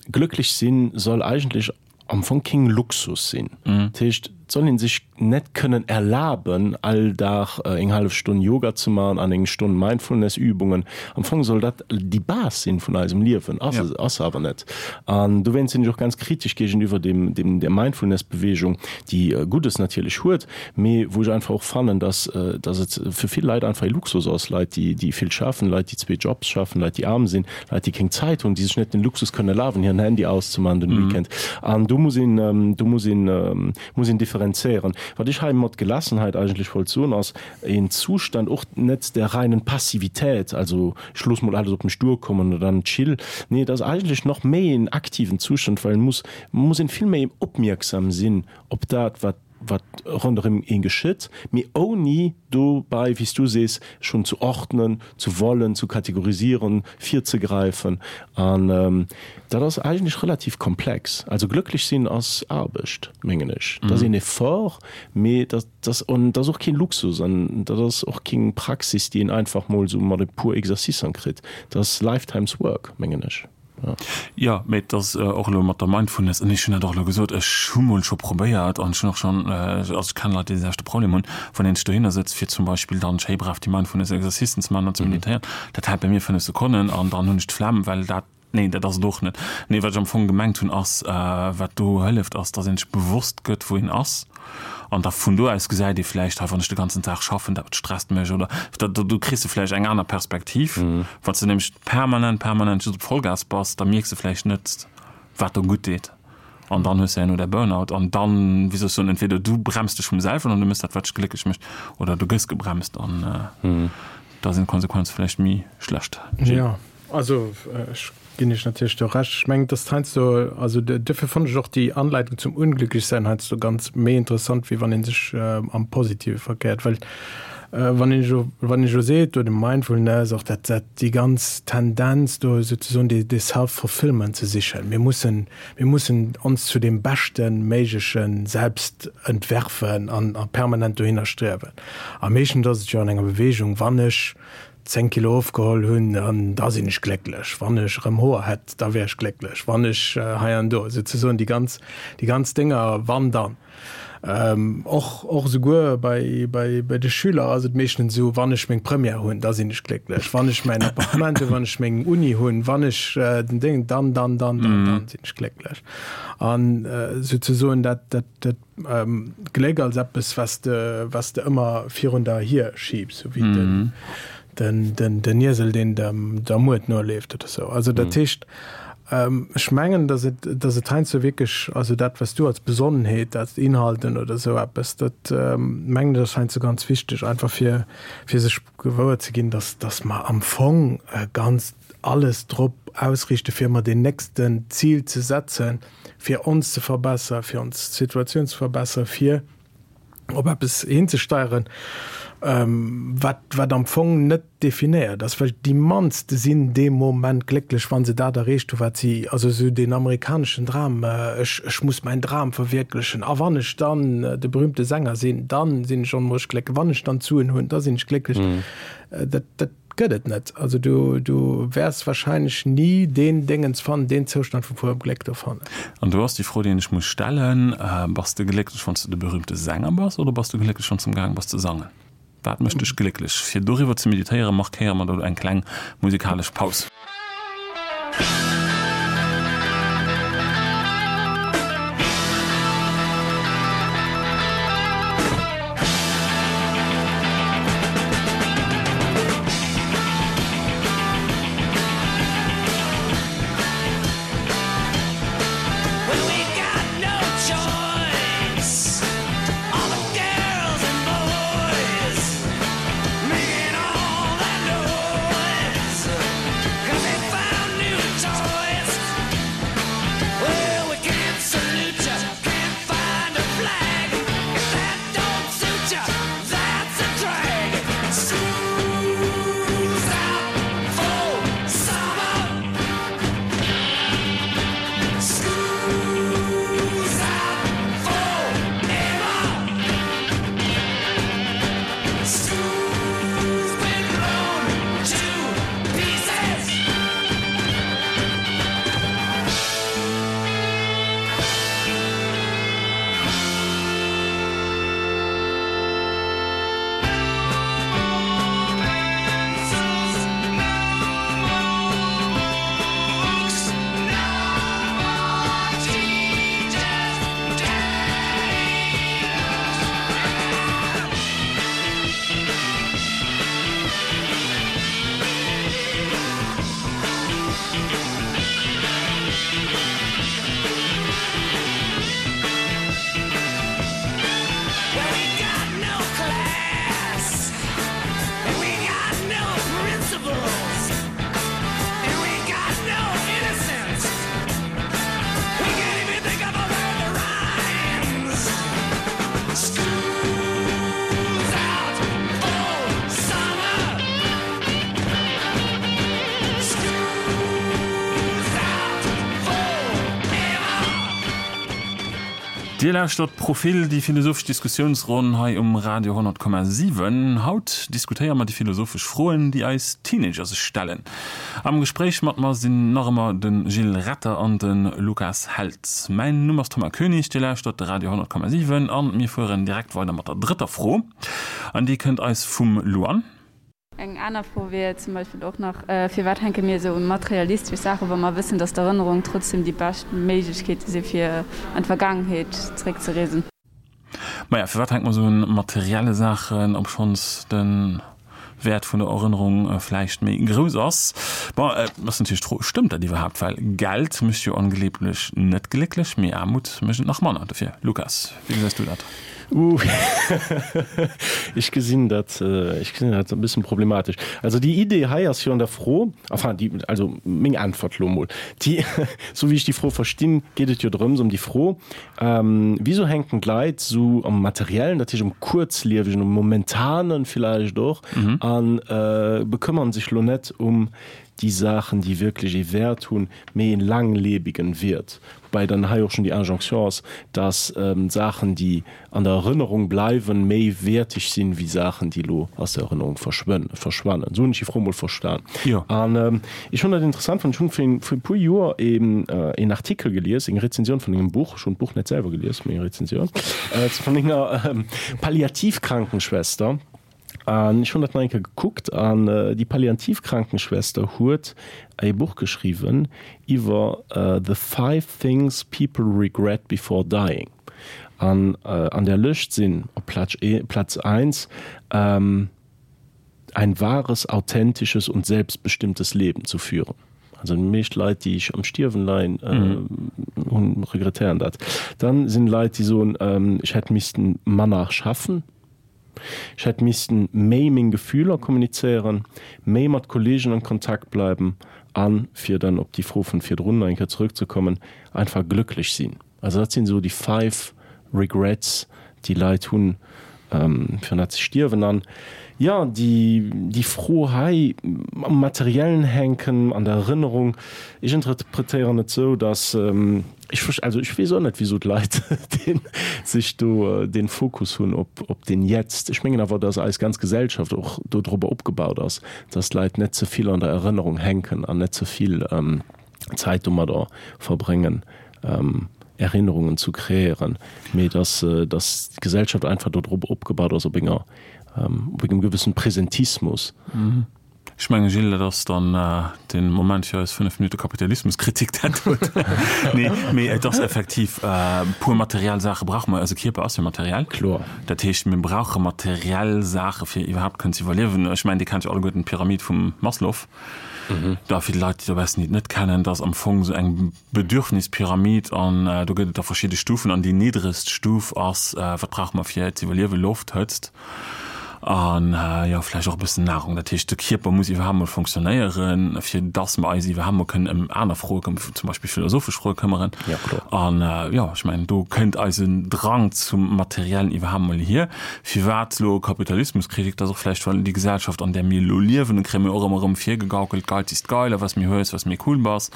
Glëcklech sinn soll eigentlech am Fong keng Luxus sinn. Dat heescht, et soll ee sech net kënnen erlaben, all Dag eng hallef Stonn Yoga ze maachen an eng Stonn Mindfulness-Übungen. Am Fong soll dat déi Base sinn vun eisem Liewen, ass se ass se awer net. An dowéinst sinn ech och ganz kritesch géigeniwwer dem dem der Mindfulness-Bewegung, déi Guddes natierlech huet, mee wou ech einfach och fannen, dass dass et fir vill Leit einfach ee Luxus ass, Leit, déi déi vill schaffen, Leit, déi zwee Jobs schaffen, Leit, déi aarm sinn, Leit, déi keng Zäit hunn, déi sech net den Luxus kënnen erlaben, hiren Handy auszemaachen den Weekend. An do muss een, do muss een, muss een differenzéieren. Wat ech hei mat Gelassenheit eigentlech wollt soen, ass een Zustand och net der reinen Passivität, also ech looss mol alles op mech duerkommen oder dann chill. Nee, et ass eigentlech nach méi een aktiven Zustand, well et muss, muss een vill méi opmierksam sinn op dat, wat. wat ronderëm een geschitt, mee ouni dobäi, wéi s du sees, schonn zu ordnen, zu wollen, zu kategorisieren, virzegräifen. An dat ass eigentlech relativ komplex. Also glëcklech sinn ass Aarbecht, mengen ech. Dat ass een Effort, mee dat ass, an dat ass och keen Luxus an dat ass och keng Praxis, déi een einfach mol esou mat e puer Exercicen kritt. Dat ass lifetime's work, mengen ech.
Jo, mee et ass och elo mat der Mindfulness, an ech hunn dat och elo gesot, ech hu mol scho probéiert an ech hunn och schonn, also ech kennen Leit, déi dee selwechte Problem hunn, wann een sech dohinner sëtzt, fir zum Beispill dann schéi brav déi Mindfulness-Exercicen ze maachen an ze meditéieren, dat hält bei mir 5 Sekonnen an dann hunn ech d'Flemm, well dat, nee, dat ass et och net. Nee, wat ech am Fong gemengt hunn ass, wat do hëlleft, ass, datt een sech bewosst gëtt, wou een ass. An da vun do aus gesäit ee vläicht, hei wann ech de ganzen Dag schaffen, dat stresst mech oder da do kriss de vläicht eng aner Perspektiv. Wann s de nämlech permanent, permanent just op Vollgas bass, da mierks de vläicht net, wat der gutt deet. An dann hues de herno däi Burnout an dann, wéi soll ech soen, entweder du bremst dech vum selwen an du méchs dat, wat dech glécklech mécht, oder du gëss gebremst an da sinn d'Konsequenze vläicht méi schlecht.
Jo, also ech Ginn ech natierlech do Recht. Ech mengen, dass heiansdo, also duerfir fonnt ech och déi Anleitung zum Unglücklichsein heiansdo ganz méi interessant, wéi wann ee sech am Positive verkéiert. Well wann een elo, wann een elo seet, do de Mindfulness, och dat, dat déi ganz Tendenz do souzesoen dee, dee Self-fulfillment ze sichen, mir mussen, mir mussen ons zu deem beschte méigleche Selbst entwerfen an a permanent dohinner striewen. A meeschtens ass et jo an enger Bewegung, wann ech 10 Kilo ofgeholl hunn, an da sinn ech glécklech. Wann ech erëm Hoer hätt, da wär ech glécklech. Wann ech hei an do, souzesoen déi ganz, déi ganz Dénger, wann dann. Och, och esouguer bei, bei, bei de Schüler ass et meeschtens esou, wann ech meng Première hunn, da sinn ech glécklech. Wann ech mäin Appartement hunn, wann ech meng Uni hunn, wann ech den Déng, dann, dann, dann, dann, dann sinn ech glécklech. An souzesoen dat, dat, dat Gléck als eppes, was de, was de ëmmer virun der hier schiebs, sou wéi den, den, den, den Iesel, deen dem, der Muert noleeft oder sou. Also dat heescht, ech mengen, datt et, datt et heiansdo wierklech, also dat, was du als Besonnenheet, als Inhalten oder sou eppes, dat mengen ech ass heiansdo ganz wichteg, einfach fir, fir sech gewuer ze ginn, datt, datt mer am Fong ganz alles drop ausriichte fir ëmmer deen nächsten Zil ze setzen, fir ons ze verbessern, fir ons Situatioun ze verbessern, fir op eppes hinzesteieren, wat, wat am Fong net definéiert ass, well déi mannste sinn dee Moment glécklech, wa se dat erreecht hu wat si, also esou deen amerikaneschen Dram, ech, ech muss mäin Dram verwierklechen a wann ech dann de berühmte Sänger sinn, dann sinn ech onmoosch glécklech, wann ech dann d'Suen hunn, da sinn ech glécklech. Dat, dat Gëtt et net. Also du, du wäers wahrscheinlech ni deen Déngens fannen, deen Zoustand vu purem Gléck do fannen.
An do ass déi Fro, déi een sech muss stellen, Bass de glécklech, wann s de de berühmte Sänger bass, oder bass du glécklech, wann s de amgaang bass ze sangen? Wat mécht dech glécklech? Fir doriwwer ze meditéieren, markéiere mer do eng kleng musikalesch Paus. Dir lauschtert Profil, déi philosophesch Diskussiounsronn hei um Radio 100,7. Haut diskutéiere mer déi philosophesch Froen, déi eis Teenager sech stellen. Am Gespréich mat mer sinn nach ëmmer de Gilles Retter an de Lukas Held. Mäin Numm ass Thomas Koenig, Dir lauschtert de Radio 100,7 an mir fueren direkt weider mat der drëtter Fro an déi kënnt eis vum Luan.
Eng aner Fro wier zum Beispill och nach, Firwat hänke mir esou un materialistesch Saachen, wa mer wëssen, dass d'Erënnerungen trotzdem déi bescht Méiglechkeete si fir an d'Vergaangenheet zeréckzereesen?
Maja, firwat hänke mer esou un materielle Saachen, obschonns de Wäert vun der Erënnerung vläicht méi grouss ass? Bon, et ass natierlech d'Fro, Stëmmt dat iwwerhaapt? Well Geld mécht jo angeeblech net glécklech, mee Aarmut mécht et nach manner. Dofir, Lukas, wéi gesäis du dat?
Uh, ech gesinn dat, ech gesinn dat e bëssen problematesch. Also déi Idee hei ass jo an der Fro, enfin déi, also meng Äntwert elo emol, déi, esou wéi ech déi Fro verstinn, geet et jo drëms, ëm déi Fro, Wieso hänken d'Leit esou am Materiellen, dat heescht um Kuerzliewegen, um Momentanen villäicht och, a bekëmmern sech elo net um déi Saachen, déi wierklech ee Wäert hunn, mee een laanglebigen Wiert. Woubäi dann hei och schon déi Injonction ass, dass Saachen, déi an der Erënnerung bleiwen, méi wäerteg sinn, wéi Saachen, déi elo aus der Erënnerung verschwannen. Esou hunn ech déi Fro emol verstan. An ech hunn dat interessant fonnt, ech hunn vir e puer Joer een Artikel gelies, eng Rezensioun vun engem Buch, ech hunn d'Buch net selwer gelies, mee eng Rezensioun vun enger Palliativkrankenschwester, An ech hunn dat nach eng Kéier gekuckt an déi Palliativkrankenschwester huet e Buch geschriwwen iwwer The five things people regret before dying. An an där Lëscht sinn op Platz Platz eins Ein wahres, authentisches und selbstbestimmtes Leben zu führen. Also déi meescht Leit, déi am Stierwen leien, hunn, regrettéieren dat. Dann sinn Leit, déi soen, ech hätt missten manner schaffen. Ech hätt missten méi meng Gefühler kommunizéieren, méi mat Kollegen an Kontakt bleiben an, fir dann op déi Fro vun virdrun nach eng Kéier zurückzekommen, einfach glëcklech sinn. Also dat sinn esou déi five regrets, déi Leit hunn, virun dat se stierwen. An jo, déi, déi Fro hei am Materiellen hänken, an der Erënnerung, ech interpretéieren et esou, dass, Ech verst, also ech weess och net wisou d'Leit deen sech do deen Fokus hunn op op den Jetzt. Ech mengen awer, datt eis ganz Gesellschaft och do drobber opgebaut ass, datt d'Leit net ze vill an der Erënnerung hänken an net ze vill Zäit domadder verbréngen Erinnerungen zu kreéieren, mee datt datt d'Gesellschaft einfach do drop opgebaut ass op enger op engem gewëssen Präsentismus.
Ech mengen, Gilles, dat ass dann de Moment fir eis 5 Minutte Kapitalismuskritik, dat huet. Nee, mee et ass effektiv, e puer materiell Saache brauche mer. Eise Kierper ass jo materiell.
Kloer.
Dat heescht, mir brauche materiell Saache fir iwwerhaapt kënnen ze iwwerliewen. Ech mengen, Dir kennt jo alleguerten d'Pyramid vum Maslow. Da fir déi Leit, déi dobaussen déi et net kennen, dat ass am Fong esou eng Bedürfnispyramid an do gëtt et da verschidde Stufen an déi niddregst Stuf ass, wat brauche mer fir ze iwwerliewen, Loft, Hëtzt an jo vläicht och e bëssen Nahrung. Dat heescht, de Kierper muss iwwerhaapt mol fonctionnéieren, fir dass mer eis iwwerhaapt mol kënnen ëm aner Froe këm, zum Beispill philosophesch Froe këmmeren. An jo, ech mengen, do kënnt eisen Drang zum Materiellen iwwerhaapt mol hier. Firwat elo Kapitalismuskritik? Dat ass och vläicht, well déi Gesellschaft, an där mir elo liewen, kréie mir och ëmmer erëm virgegaukelt, Geiz ist geil a was méi hues, was méi cool bass.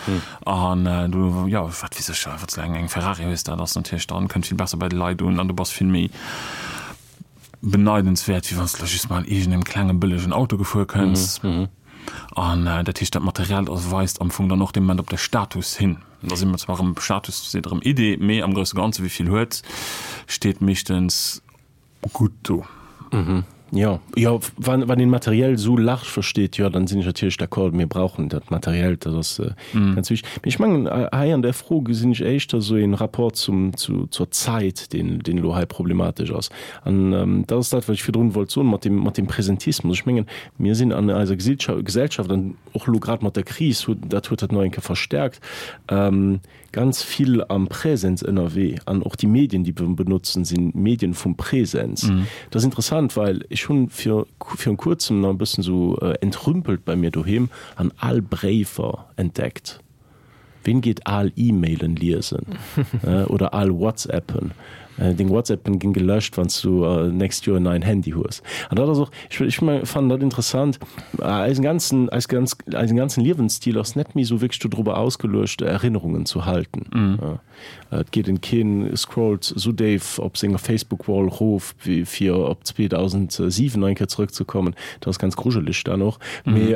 An du, jo, wat weess ech, wann s du eng eng Ferrari hues, dat ass natierlech dann, kënnt vill besser bei de Leit un an du bass vill méi beneidenswäert, wéi wann s du just mal an iergendengem klenge bëllegen Auto gefuer kënns. An dat heescht, dat Materiellt ass weist am Fong dann och dee Moment op de Status hin. Da si mer zwar erëm, Status seet erëm Idee, mee am grousse Ganze wie vill huet, steet meeschtens gutt do.
Mhm. Jo, jo, wann, wann een materiell esou large versteet, jo, dann sinn ech natierlech d'accord, mir brauchen dat Materiellt, dat ass ganz wichteg. Mee ech mengen, hei an där Fro gesinn ech éischter esou een Rapport zum, zu, zur Zait, deen, deen elo hei problematesch ass. An dat ass dat, wat ech virdrun wollt soen mat dem, mat dem Präsentismus. Ech mengen, mir sinn an eiser Gesellschaft, an och elo grad mat der Kris huet, dat huet dat nach eng Kéier verstärkt, ganz vill am Präsens ënnerwee an och déi Medien, déi mer benotzen, si Medien vum Präsens. Dat ass interessant, well ech hunn vir virun kuerzem nach e bëssen esou entrümpelt bei mir doheem an al Bréifer entdeckt. Ween geet al E-Mailen liesen oder al WhatsAppen? Deng WhatsAppen ginn gelöscht, wann s du nächst Joer en neien Handy hues. An dat ass och, ech ech fannen dat interessant, eisen ganzen, eis ganz, eisen ganzen Liewensstil ass net méi esou wierklech dodrobber ausgeluecht, Erinnerungen zu halten. Et geet en, keen scrollt esou déif op senger Facebook-Wall rof, wéi fir op 2007 nach eng Kéier zrëckzekommen. Dat ass ganz grujeleg dann och. Mee,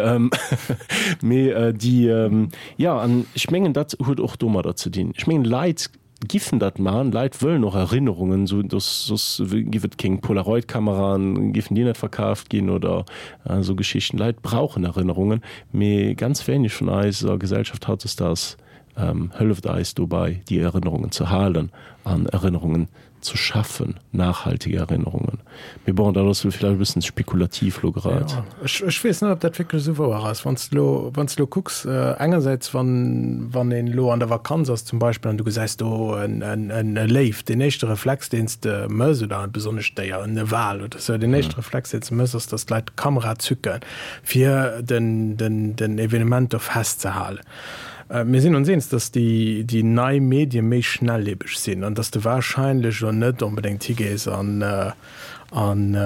mee déi, jo, an ech mengen, dat huet och domadder ze dinn. Ech mengen, Leit Giffen dat man, Leit wëllen och Erinnerungen, sou dass soss giff et kéng Polaroid-Kameraen, giffen déi net verkaaft ginn oder esou Geschichten. Leit brauchen Erinnerungen, mee ganz wéineg vun eiser Gesellschaft hautdesdaags hëlleft eis dobei déi Erinnerungen ze halen an Erinnerungen ze schaffen, nachhaltige Erinnerungen. Mee bon, dat ass elo villäicht e bëssen spekulativ lo grad.
Jo, ech, ech weess net, ob dat wierklech esou wouer ass. Wann s de elo, wann s de elo kucks, engersäits, wann, wann een elo an der Vakanz ass zum Beispill an du gesäis do en, en, en e Léiw, deen éischte Reflex, deen s de mëss, oder e besonnescht Déier, en Wal oder esou, deen éischte Reflex, deen s de mëss, ass, dass d'Leit d'Kamera zücken, fir den, den, den Evenement do festzehalen. Mir sinn ons eens, dass déi, déi nei Medie méi schnelllebeg sinn an dass de wahrscheinlech elo net onbedéngt higees an, an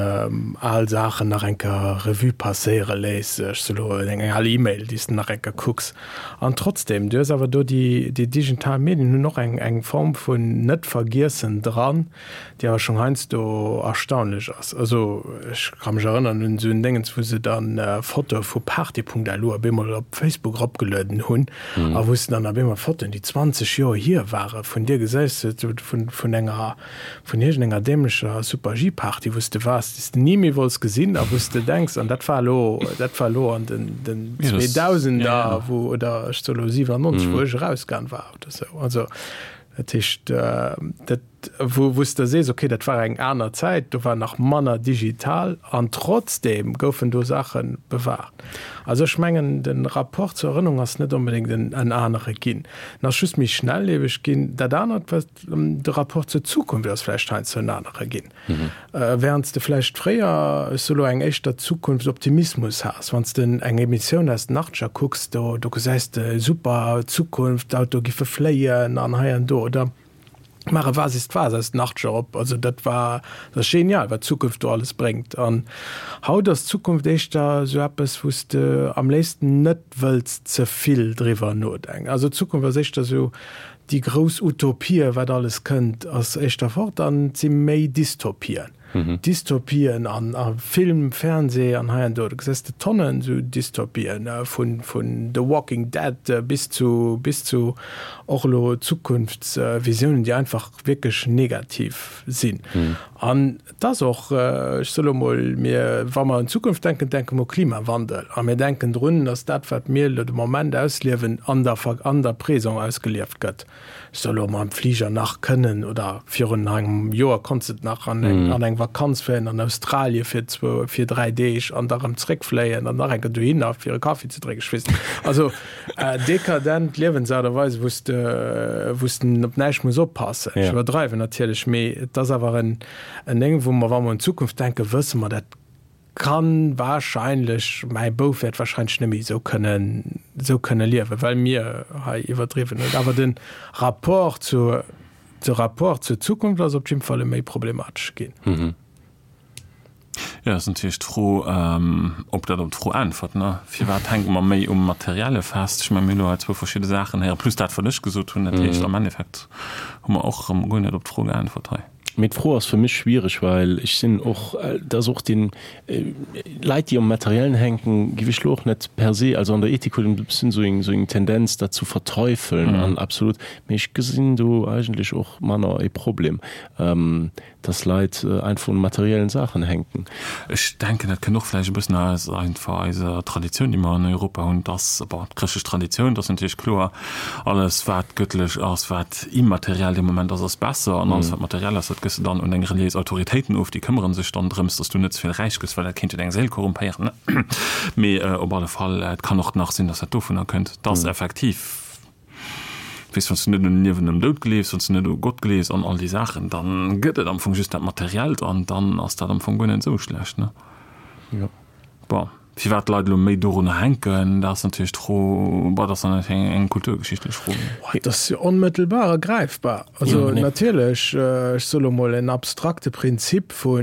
al Saachen nach eng Kéier Revue passéiere léiss, ech soe lo eng al E-Mail, déi s de nach eng Kéier kucks. An trotzdem, du hues awer do déi, déi digital Medien hunn och eng, eng Form vun Net-Vergiessen dran, déi awer schonn heiansdo erstaunlech ass. Also ech ka mech erënneren un esou en Déngens, wou se dann Fotoe vu Party.lu op eemol op Facebook eropgelueden hunn a wou s de dann op eemol Fotoen, déi 20 Joer hier ware vun dir gesäis, vun, vun enger vun iergendenger dämlecher Super-G-Party, wou s de waars, déi s de ni méi wollts gesinn a wou s de denks, an dat war elo, dat war elo an den, den Zweedausender, wou, oder ech soe elo 97, wou ech erausgaang war oder sou. Also, dat heescht, dat, wou, wou s de sees, okay, dat war eng aner Zäit, do war nach manner digital an trotzdeem goufen do Saache bewahrt. Also ech mengen, de Rapport zur Erënnerung ass net onbedéngt en, en anere ginn. En ass just méi schnellieweg ginn. Dat anert, wat, De Rapport zur Zukunft ass vläicht heiansdo en anere ginn. Während s de vläicht fréier, ech soe lo, eng éischter Zukunftsoptimismus has, wann s de eng Emissioun aus den Achtzeger kucks, do do gesäis de super Zukunft, d'Autoe giffe fléien an hei an do, oder maach e Was ist was aus den Achtzeger op, also dat war, dat ass genial, wat d'Zukunft do alles bréngt. An haut ass d'Zukunft éischter esou eppes, wou s de am léifsten net wëlls ze vill driwwer nodenken. Also d'Zukunft ass éischter esou Déi grouss Utopie, wat alles kënnt, ass éischter fort an et si méi Dystopien. Dystopien an a Film, Fernseh an hei an do. Do gesäis de Tonnen esou Dystopien, vun vun The Walking Dead bis zu bis zu och elo Zukunftsvisiounen, déi einfach wierklech negativ sinn. An et ass och, ech soe lo mol, mir, wa mer un d'Zukunft denken, denke mer u Klimawandel a mir denken drun, datt dat, wat mir elo de Moment ausliewen, an der an der Présent ausgelieft gëtt. Ech soe lo mam Fliger nach kënnen oder virun engem Joer konns de nach an eng an eng Vakanz fléien an Australie fir zwou, fir 3 Deeg an da rëm zréckfléien an nach eng Kéier dohinner fir e Kaffi ze drénken, ech weess net. Also dekadent Liewensaart a Weis, wou s de, wou s de op näischt muss oppassen. Ech iwwerdreiwen natierlech, mee et ass awer en, en Déng, wou mer, wa mer un d'Zukunft denken, wësse mer, dat kann wahrscheinlech, mäi Bouf wäert wahrscheinlech net méi esou kënnen, esou kënne liewen, well mir hei iwwerdriwwen hunn. Awer de Rapport zur, de Rapport zur Zukunft ass op jidde Fall e méi problematesche ginn.
Jo, ass natierlech d'Fro, ob dat op d'Fro äntwert, ne? Firwat hänke mer méi um Materielle fest? Ech mengen, mir hunn elo hei zwou verschidde Saachen héieren, plus dat, wat ech gesot hunn. Dat heescht, am Endeffekt hu mer och erëm guer net op d'Fro geäntwert hei.
Mee d'Fro ass fir mech schwiereg, well ech sinn och, dat ass och deen, Leit, déi um Materiellen hänken, géif ech elo och net per se, also an der Ethik huet een e bëssen esou eng, esou eng Tendenz, dat zu verteufeln an absolut, mee ech gesinn do eigentlech och manner e Problem. Dass Leit einfach un materiellen Saachen hänken.
Ech denken, dat kënnt och vläicht e bëssen aus einfach eiser Traditioun, déi mer an Europa hunn, dass, bon, d'chrëschtlech Traditioun, dass natierlech kloer, alles wat gëttlech ass, wat immateriell dee Moment ass, ass besser an alles wat materiell ass, dat gëss de dann un deng reliéis Autoritéiten of, déi këmmere sech dann drëms, dass du net ze vill räich gëss, well dat kéint jo deng Séil korrumpéieren. Mee op alle Fall, et kann och nach sinn, dass dat dovunner kënnt, dass effektiv, Weess, wann s du net un Liewen nom Doud gleefs, wann s du net u Gott gleefs an all déi Saachen, dann gëtt et am Fong just dat Materiellt an dann ass dat am Fong guer net esou schlecht, ne?
Jo.
Bon. Firwat d'Leit elo méi dorunner hänken, dat ass natierlech d'Fro, bon, dat ass dann natierlech eng kulturgeschichtlech Fro.
Dat ass jo onmëttelbar a gräifbar. Also natierlech, ech soe lo mol, en abstrakte Prinzip vu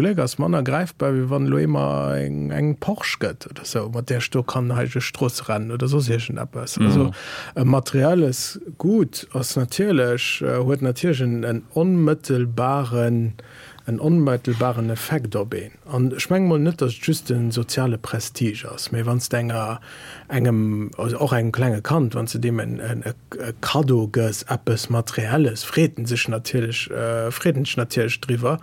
Gléck ass manner gräifbar, wéi wann elo ee mer eng Porsche gëtt oder esou, mat där ech do kann hei duerch d'Stroosse rennen oder soss iergendeppes. Also e materielles Gut ass natierlech, huet natierlech en onmëttelbaren, en onmëttelbaren Effekt op een. An ech menge mol net, datt et just de soziale Prestige ass, mä wann s de enger, engem, also och engem klenge Kand, wann s de deem en e Kaddo gëss, eppes Materielles, freet en sech natierlech, freet en sech natierlech driwwer.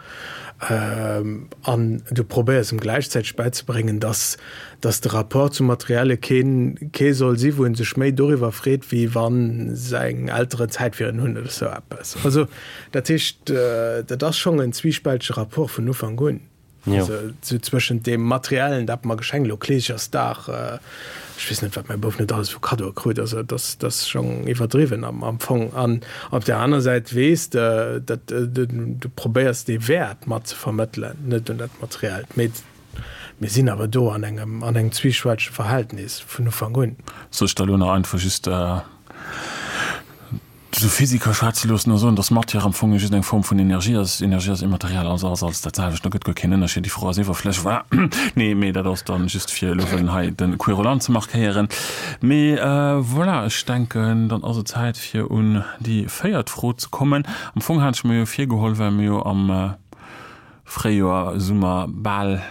An du probéiers em gläichzäiteg bäizebréngen, datt, datt de Rapport zum Materielle keen, kee soll si wou en sech méi doriwwer freet, wéi wa seng Elteren Zäit fir en hunn oder sou eppes. Also Dat heescht, dat ass schonn en zwiispältege Rapport vun Ufank un. Also sou zwëschent deem Materiellen, dat mer geschenkt, elo Kleeschersdag, ech weess net, wat mäi Bouf net alles vu Kaddoe krut, also dat ass, dat ass schonn iwwerdriwwen am, am Fong. An op där aner Säit weess de, dat du probéiers dee Wäert mat ze vermëttelen, net un dat Materiellt. Mee mir sinn awer do an engem, an engem zwiispältege Verhältnis vun Ufank un.
Soll ech da elo nach einfach just Sou Physiker schwätze loossen a soen, datt Matière am Fong just eng Form vun Energie ass, Energie ass immateriell, also ass alles dat selwecht, do gëtt guer keen Ënnerscheed, déi Fro ass iwwerflësseg, voilà. Nee, mee dat ass dann just fir elo wëllen hei de Querulant ze markéieren. Mee voilà, ech denken, dann ass et Zäit fir un déi véiert Fro ze kommen. Am Fong hat ech mer jo virgeholl, well mir jo am Fréijoer, Summer bal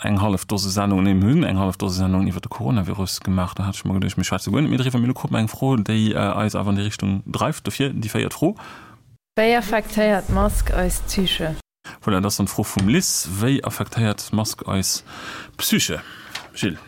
eng hallef Dose Sendungen, nee, mir hunn eng hallef Dose Sendungen iwwer de Coronavirus gemaach. Do hat ech mer geduecht, mir schwätze guer net méi driwwer. Mee elo krute mer eng Fro, déi eis awer an déi Richtung dreift. Dofir déi véiert Fro.
Wéi affektéiert d'Mask eis Psyche?
Voilà, dat ass dann d'Fro vum Liz. Wéi affektéiert d'Mask eis Psyche? Gilles.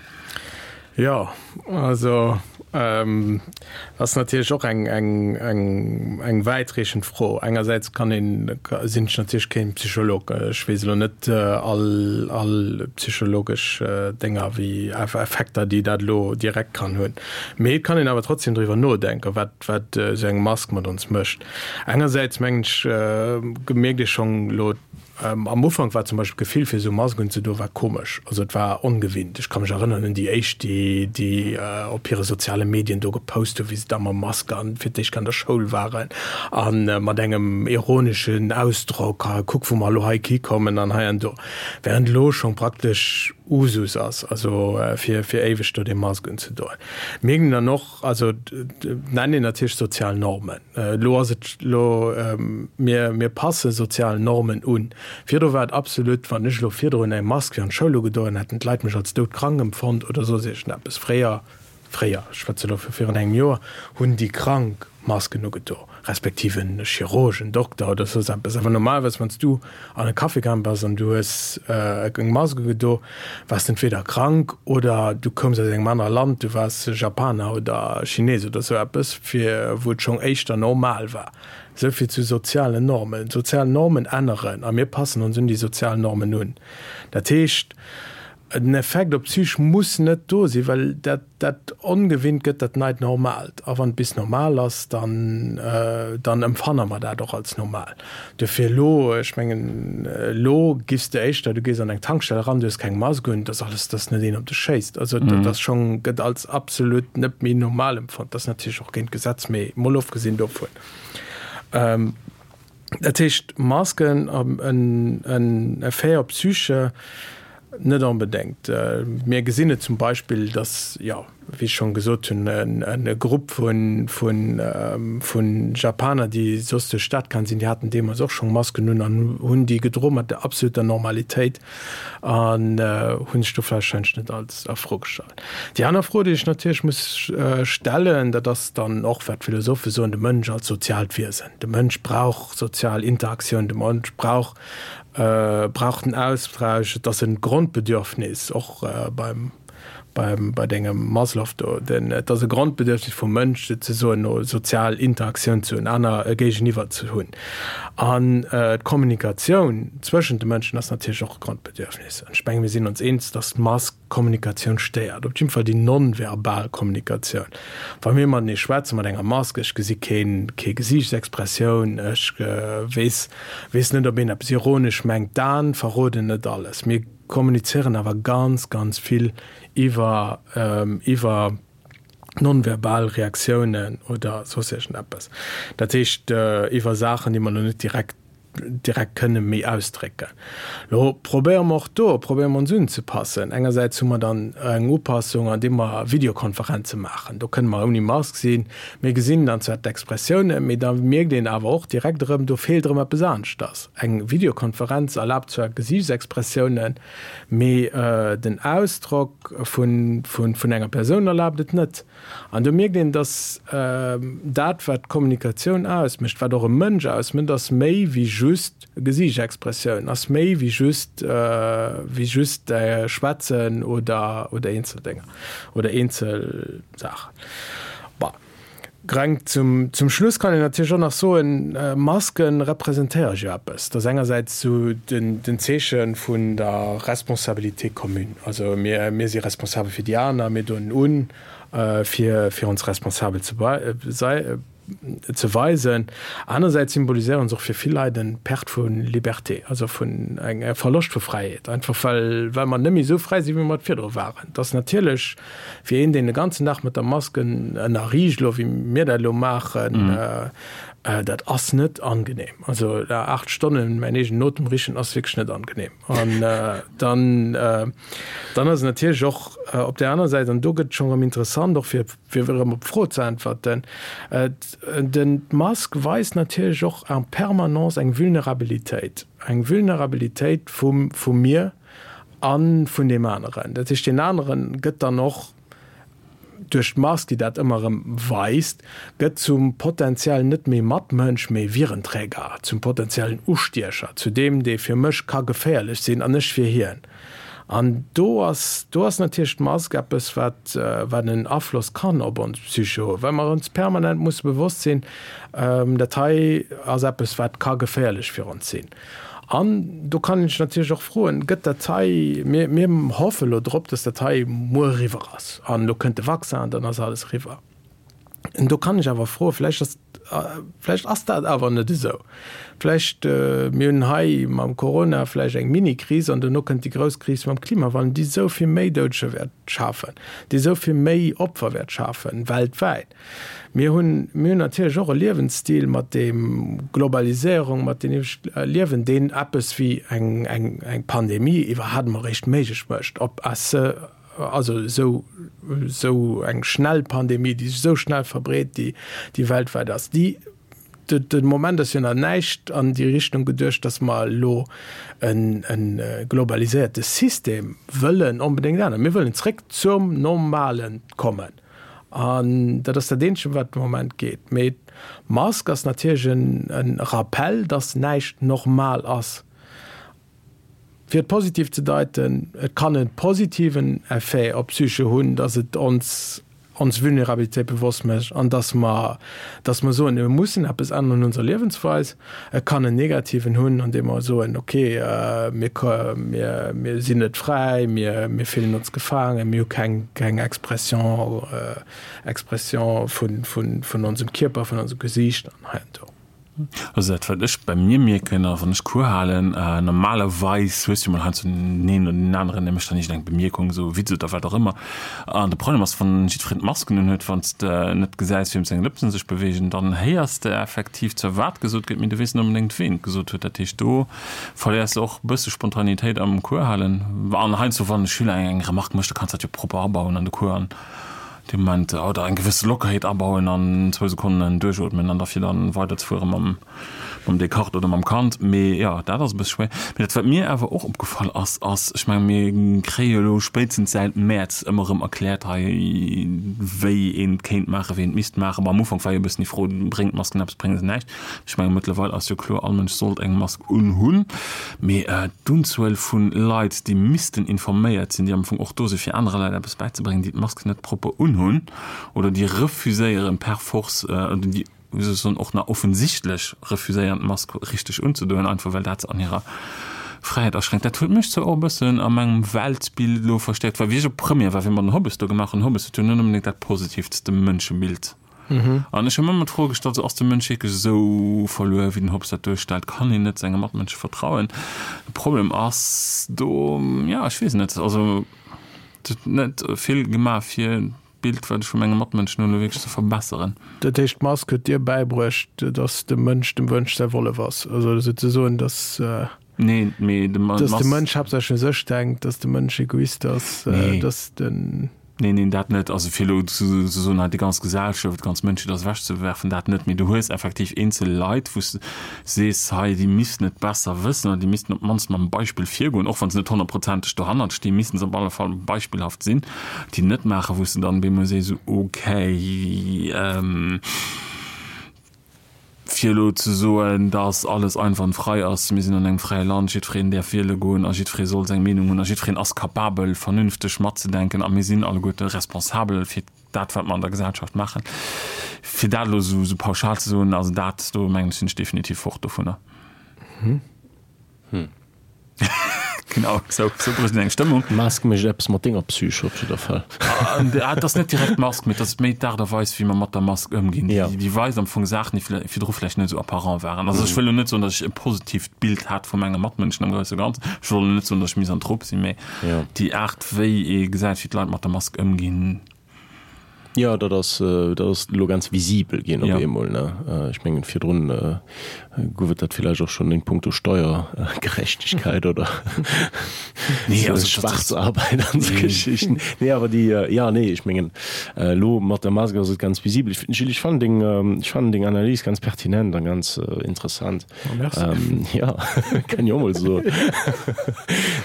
Jo, also ass natierlech och eng, eng, eng, eng wäitreechend Fro. Engersäits kann een, sinn ech natierlech keen Psycholog, ech weess elo net all, all psychologesch Dénger wéi Effekter, déi dat elo direkt kann hunn. Mee et kann een awer trotzdem driwwer nodenken, wat, wat esou eng Mask mat ons mécht. Engersäits mengen ech, mierkt ee schonn elo, Am Ufank war zum Beispill d'Gefill fir esou Mask unzedoen war komesch, also et war ongewinnt. Ech ka mech erënneren un déi éischt, déi déi op hire soziale Medien do gepost hunn, wéi se da mam Mask an fir d'éischt an der Schoul waren a mat engem ironeschen Ausdrock, ha kuck wou mer elo hei hikommen an hei an do, während elo schonn praktesch Usus ass, also fir fir éiweg do dee Mask unzedoen. Mir ginn dann och, also nennt een natierlech sozial Normen. Elo ass et elo, mir, mir passe sozial Normen un. Virdru war et absolut, wann ech elo virdrun eng Mask fir an d'Schoul ugedoen hätt, hätten d'Leit mech als doudkrank empfonnt oder soss iergendeppes. Fréier, fréier, ech schwätze elo vu virun engem Joer, hunn déi Krank Masken ugedo, respektiv en Chirurg, en Dokter oder soss eppes. Awer normalerweis, wann s du an e Café gaang bass an du hues eng Mask ugedo, waars de entweder krank oder du koums aus engem anere Land, du waars Japaner oder Chines oder sou eppes, fir wou et schonn éischter normal war. Esou vill zu sozialen Normen. D'sozial Normen änneren a mir passen ons un déi sozial Normen un. Dat heescht, den Effekt op d'Psych muss net do sinn, well dat, dat Ongewinnt gëtt dat neit Normaalt. A wann et bis normal ass, dann, dann empfanne mer dat och als normal. Duerfir elo, ech mengen, elo giffs de éischter, du gees an eng Tankstell eran, du hues keng Mask un, dat ass alles, dass net een op dech schéisst. Also dat ass schonn, gëtt als absolut net méi normal empfonnt. Dat ass natierlech och géint d'Gesetz, mee mol ofgesinn dovun. Dat heescht, Masken, en Effet op d'Psyche? Net onbedéngt. Mir gesinn et zum Beispill, datt, jo, wéi ech schonn gesot hunn, e Grupp vu Japaner, déi soss duerch d'Stad gaangen sinn, déi haten deemools och schonn Masken un an hunn déi gedroe mat der absoluter Normalitéit an hunn sech do warscheinlech net als a Fro gestallt. Déi aner Fro, déi ech natierlech muss stellen, dat ass dann och, wat d'Philosophe soen, de Mënsch als soziaalt Wiesen. De Mënsch brauch sozial Interaktioun, de Mënsch brauch brauch den Austausch, et ass e Grondbedürfnis, och beim beim bei dengem Maslow do, den et ass e Grondbedürfnis vum Mënsch souzesoen no sozial Interaktioun ze hunn, aner e Géigeniwwer ze hunn. An d'Kommunikatioun zwëschent de Mënschen ass natierlech och e Grondbedürfnis. An ech menge mir sinn ons eens, datt d'Mask Kommunikatioun stéiert, op jidde Fall déi non-verbal Kommunikatioun. Wa mir matenee schwätzen, mat enger Mask, ech gesi keen, kee Gesiichtsexpressioun, ech weess, weess net, ob een eppes ironesch mengt, d'Aen verroden net alles. Mir. kommunizéieren awer ganz, ganz vill iwwer, iwwer nonverbal Reaktiounen oder soss iergendeppes. Dat heescht, iwwer Saachen, déi mer elo net direkt direkt kënne méi ausdrécken. Lo probéiere mer och do, probéiere mer ons unzepassen. Engersäits hu mer dann eng Upassung, andeem mer Videokonferenze maachen. Do kënne mer ouni Mask sinn. Mir gesinn dann zwar d'Expressiounen, mee da mierkt een awer och direkt erëm, do feelt erëm eppes aneschters. Eng Videokonferenz erlaabt zwar Gesiichtsexpressiounen, mee den Ausdrock vun enger Persoun erlaabt et net. An do mierkt een, dass dat, wat Kommunikatioun ausmécht, wat och e Mënsch ausmécht, ass méi wéi just Gesiichtexpressioun, ass méi wéi just, wéi just Schwätzen oder, oder eenzel Dénger oder eenzel Saachen. Bon, greng zum, zum Schluss kann een natierlech och nach soen, Maske representéiere jo eppes. Dat ass engersäits esou den, den Zeeche vun der Responsabilité commune. Also mir, mir si responsabel fir déi aner, mir doen un, fir, fir ons responsabel ze ze weisen. Anersäits symboliséieren se och fir vill Leit en Perte vu Liberté, also vun eng e Verloscht vu Fräiheet, einfach well, well mer net méi esou fräi sinn, wéi mer et virdru waren. Et ass natierlech fir een, deen de ganzen Dag mat der Mask ënnerriicht, elo wéi mir dat elo maachen, dat ass net angenehm. Also 8 Stonnen mäin eegenen Otem richen ass wierklech net angenehm. An dann, dann ass et natierlech och op där aner Säit, an do gëtt et schonn erëm interessant, och fir, fir erëm op d'Fro ze äntwerten, den, d'Mask weist natierlech och en permanence eng Vulnerabilitéit, eng Vulnerabilitéit vum, vu mir a vun deem aneren. Dat heescht, deen anere gëtt dann och duerch d'Mask, déi dat ëmmer erëm weist, gëtt zum potenziellen net méi Matmënsch, mee Virenträger, zum potenziellen Ustiecher, zu deem, dee fir mech ka geféierlech sinn an ech fir hien. An do ass, do ass natierlech d'Mask eppes, wat, wat en Afloss kann op ons Psyche hunn, well mer ons permanent musse bewosst sinn, dat hei ass eppes, wat ka geféierlech fir ons sinn. An do kann een sech natierlech och froen, Gëtt dat hei, mir, mir hoffe elo drop, dass dat hei muer eriwwer ass an elo kënnt de Vaccin an dann ass alles eriwwer. An do kann ech awer froen, vläicht ass, vläicht ass dat awer net esou. Vläicht, mir hunn hei mam Corona vläicht eng Mini-Kris an duerno kënnt déi grouss Kris mam Klimawandel, déi esou vill méi Doudeger wäert schafen, déi esou vill méi Opfer wäert schafen, weltwäit. Mir hunn, mir hunn natierlech och e Liewensstil mat deem Globaliséierung, mat deem Liewen, deen eppes wéi eng, eng, eng Pandemie iwwerhaapt emol eréischt méiglech mécht, ob à ce, also esou, esou eng schnell Pandemie, déi sech esou schnell verbreet, déi, déi weltwäit ass, déi, de, de Moment ass jo nach näischt an déi Richtung geduecht, datt mer elo en, e globaliséierte System wëllen onbedéngt änneren. Mir wëllen zréck zum Normalen kommen. An dat ass dat Eenzege, wat de Moment geet. Mee d'Mask ass natierlech e Rappell, dass näischt normal ass. Fir et positiv ze deiten, Et kann e positiven Effet op d'Psyche hunn, dass et ons ons Vulnerabilitéit bewosst mécht an dass mer dass mer soen, mir mussen eppes änneren un onser Liewensweis. Et kann en negativen hunn, andeem mer soen, okay, mir mir mir sinn net fräi, mir mir fillen ons gefaangen, mir hu keng keng Expression Expression vun vun vun onsem Kierper, vun onsem Gesiicht an hei an do.
Also dat wat ech bei mir mierken, a wann ech Cours halen, normalerweis hues du jo mol heiansdo den een oder den aneren, dee mécht dann iergendeng Bemierkung, esou e Witz oder wat och ëmmer. An de Problem ass, wann jiddwereen d'Masken unhuet, wann s de net gesäis, wiem seng Lëpsen sech beweegen, dann héiers de effektiv zwar wat gesot gëtt, mee du weess net onbedéngt, ween et gesot huet. Dat heescht, do verléiers de och e bësse Spontanitéit am Cours halen. An heiansdo, wann e Schüler eng Remarque mécht, da kanns de dat jo propper abauen an de Cours an dee Moment, oder eng gewësse Lockerheet abauen an zwou Sekonnen duerchootmen an da fir dann weiderzefuere mam mam Descartes oder mam Kant. Mee jo, dat ass e bësse schwéier. Mee dat, wat mir awer och opgefall ass, ass, ech menge mir kréie jo elo spéitstens säit Mäerz ëmmer erëm erkläert hei, wéi een et kéint maachen, wéi een et misst maachen. Bon, am Ufank war jo e bëssen déi Fro, Bréngt d'Masken eppes, brénge se näischt? Ech menge mëttlerweil ass jo kloer, all Mënsch sollt eng Mask unhunn. Mee d'Unzuel vu Leit, déi missten informéiert sinn, déi am Fong och do si fir anere Leit eppes bäizebréngen, déi d'Mask net propper unhunn oder déi refuséieren per force, oder déi, wéi soll ech soen, och nach offensichtlech refuséieren d'Mask richteg unzedoen, einfach well dat se an hirer Fräiheet aschränkt. Dat huet mech zwar och e bëssen a mengem Weltbild elo verstäerkt, well wéi ech op Première war, wéi mer den Hobbes do gemaach hunn, Hobbes huet jo net onbedéngt dat positivtste Mënschebild. An ech hu mer ëmmer d'Fro gestallt, sou, ass de Mënsch wierklech esou verluer, wéi den Hobbes dat duerstellt? Kann een net senge Matmënsche vertrauen? De Problem ass do, jo, ech weess net, also et huet net vill gemaach, fir d'Bild, wat ech vu menge Matmënschen hunn, elo wierklech ze verbesseren.
Dat heescht, d'Mask huet dir bäibruecht, dass de Mënsch dem Wënsch säi Wollef ass? Also souzesoen, dass.
Nee, mee de
Dass de Mënsch haaptsächlech u sech denkt, dass de Mënsch Egoist ass, dass den.
Neen, neen, dat net. Also fir elo ze soen, hei déi ganz Gesellschaft, déi ganz Mënschheet ass ewechzewerfen, dat net. Mee du hues effektiv eenzel Leit, wou s de sees, hei déi missten et besser wëssen oder déi missten op d'mannst mam Beispill virgoen, och wa se net honnertprozenteg dohannert stinn, missten se op alle Fall beispillhaft sinn, déi net maachen, wou s de dann op eemol sees, okay, Fir elo ze soen, datt alles einwandfrei ass, mir sinn an engem fräie Land, jiddwereen däerf wiele goen a jiddweree soll seng Meenung hunn a jiddwereen ass capabel, vernünfteg matzedenken a mir sinn alleguerte responsabel fir dat, wat mer an der Gesellschaft maachen. Fir dat elo esou pauschal ze soen, also dat do, mengen ech, sinn ech definitiv fort dovunner. Genau, sou, sou brécht een eng Stëmmung.
D'Mask mécht eppes mat denger Psyche op jidder Fall.
Ah, et ass net direkt d'Mask, mee et ass méi d'Aart a Weis, wéi mer mat der Mask ëmginn.
Ja.
Déi weist am Fong Saachen, déi virdru vläicht net esou apparent waren. Also ech wëll elo net soen, datt ech e positiivt Bild hat vu menge Matmënschen am grousse Ganzen. Ech wëll elo net soen, datt ech Misanthrop sinn, mee déi Aart, wéi ee gesäit, wéi d'Leit mat der Mask ëmginn.
Jo, dat ass, dat ass elo ganz visibel ginn op eemol, ne? Ech mengen, virdrun gouf et dat villäicht och schonn in puncto Steiergerechtigkeit oder Schwarzarbeit an esou Geschichten. Nee, awer déi, jo, nee, ech mengen, elo mat der Mask ass et ganz visibel. Ech, Gilles, ech fannen deng, ech fannen deng Analys ganz pertinent a ganz interessant.
Oh, merci.
Ähm, ja, kann ich och mol soen.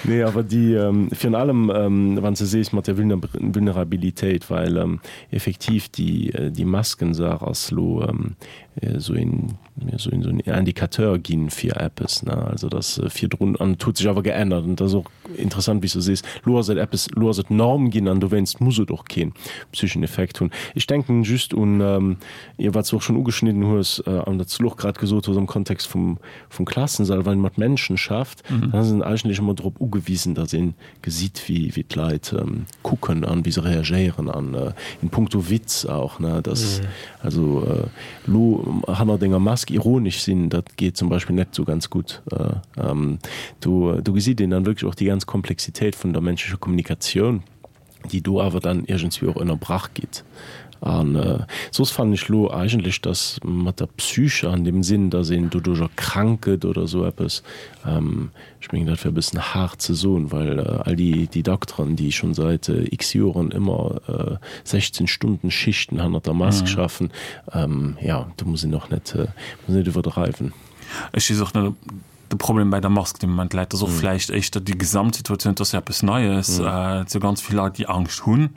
Nee, awer déi, ähm, virun allem, ähm, wann s de sees mat der Vulner Vulnerabilitéit, well ähm, effektiv déi, äh, déi Maskensaach ass lo ähm, esou een, esou een, esou en Indicateur ginn fir eppes, ne? Also dass äh, virdrun, an et huet sech awer geännert an et ass och interessant, wéi s du sees, lo ass et eppes, lo ass et Norm ginn an dowéinst muss et och keen psycheschen Effekt hunn. Ech denken just un, ähm, Jo, wat s de och schonn ugeschnidden hues an wat s de elo och grad gesot hues am Kontext vum, vum Klassensall, wann een mat Menschen schafft, dann ass een eigentlech ëmmer drop ugewisen, datt ee gesitt, wéi, wéi d'Leit kucken an wéi se reagéieren an in puncto Witz auch, ne, dass also elo hannert enger Mask ironesch sinn, dat geet zum Beispill net esou ganz gutt. Do, do gesitt een dann wierklech och déi ganz Komplexitéit vun der menschlecher Kommunikatioun. déi do awer dann iergendswéi och ënnerbrach gitt. A soss fannen ech elo eigentlech, datt mat der Psyche an deem Sinn, datt een doduercher krank gëtt oder esou eppes, ech mengen dat wär e bëssen haart ze soen, well all déi déi Dokteren, déi schonn säit x Joren ëmmer 16 Stunden Schichten hannert der Mask schaffen, jo, do muss een och net, muss net iwwerdreiwen.
Ech weess och net, ob de Problem bei der Mask de Moment läit, ass och vläicht éischter déi Gesamtsituatioun, et ass jo eppes Neies, et si ganz vill Leit, déi Angscht hunn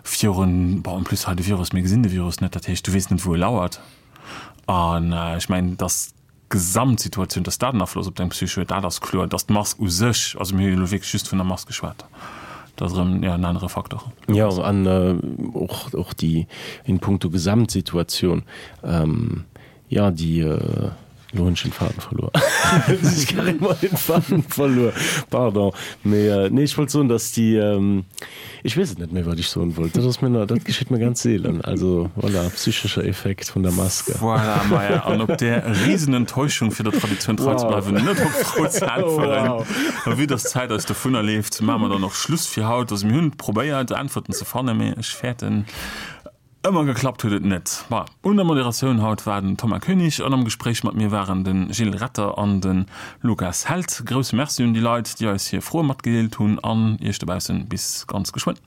virun, bon, en plus hei de Virus, mir gesinn de Virus net, dat heescht, du weess net, wou e lauert. An ech mengen, datt d'Gesamtsituatioun, datt dat en Afloss op deng Psyche huet, dat ass kloer. Datt d'Mask u sech, also mir hu jo elo wierklech just vun der Mask geschwat, dat ass erëm, jo, en anere Faktor.
Jo, an och, och déi in puncto Gesamtsituatioun, Jo, déi, elo hunn ech den Faden verluer. Ech carrément den Faden verluer, pardon. Mee nee, ech wollt soen, dass déi, ech weess et net méi, wat ech soen wollt. Dat ass mir, dat geschitt mir ganz seelen. Also voilà, psychescher Effekt vun der Maske.
Voilà, maja, an op där Riesenenttäuschung, fir der Traditioun trei ze bleiwen, net op d'Fro ze äntweren, a vue dass d'Zäit eis dovunnerleeft, maache mer dann och Schluss fir haut. Also mir hunn probéiert, Äntwerten ze fannen, mee ech fäerten, Ëmmer geklappt huet et net. Ma un der Moderatioun haut war den Thomas Koenig an am Gespréich mat mir waren de Gilles Retter an de Lukas Held. Grousse Merci un déi Leit, déi eis hir Froe matgedeelt hunn an iech dobaussen bis ganz geschwënn.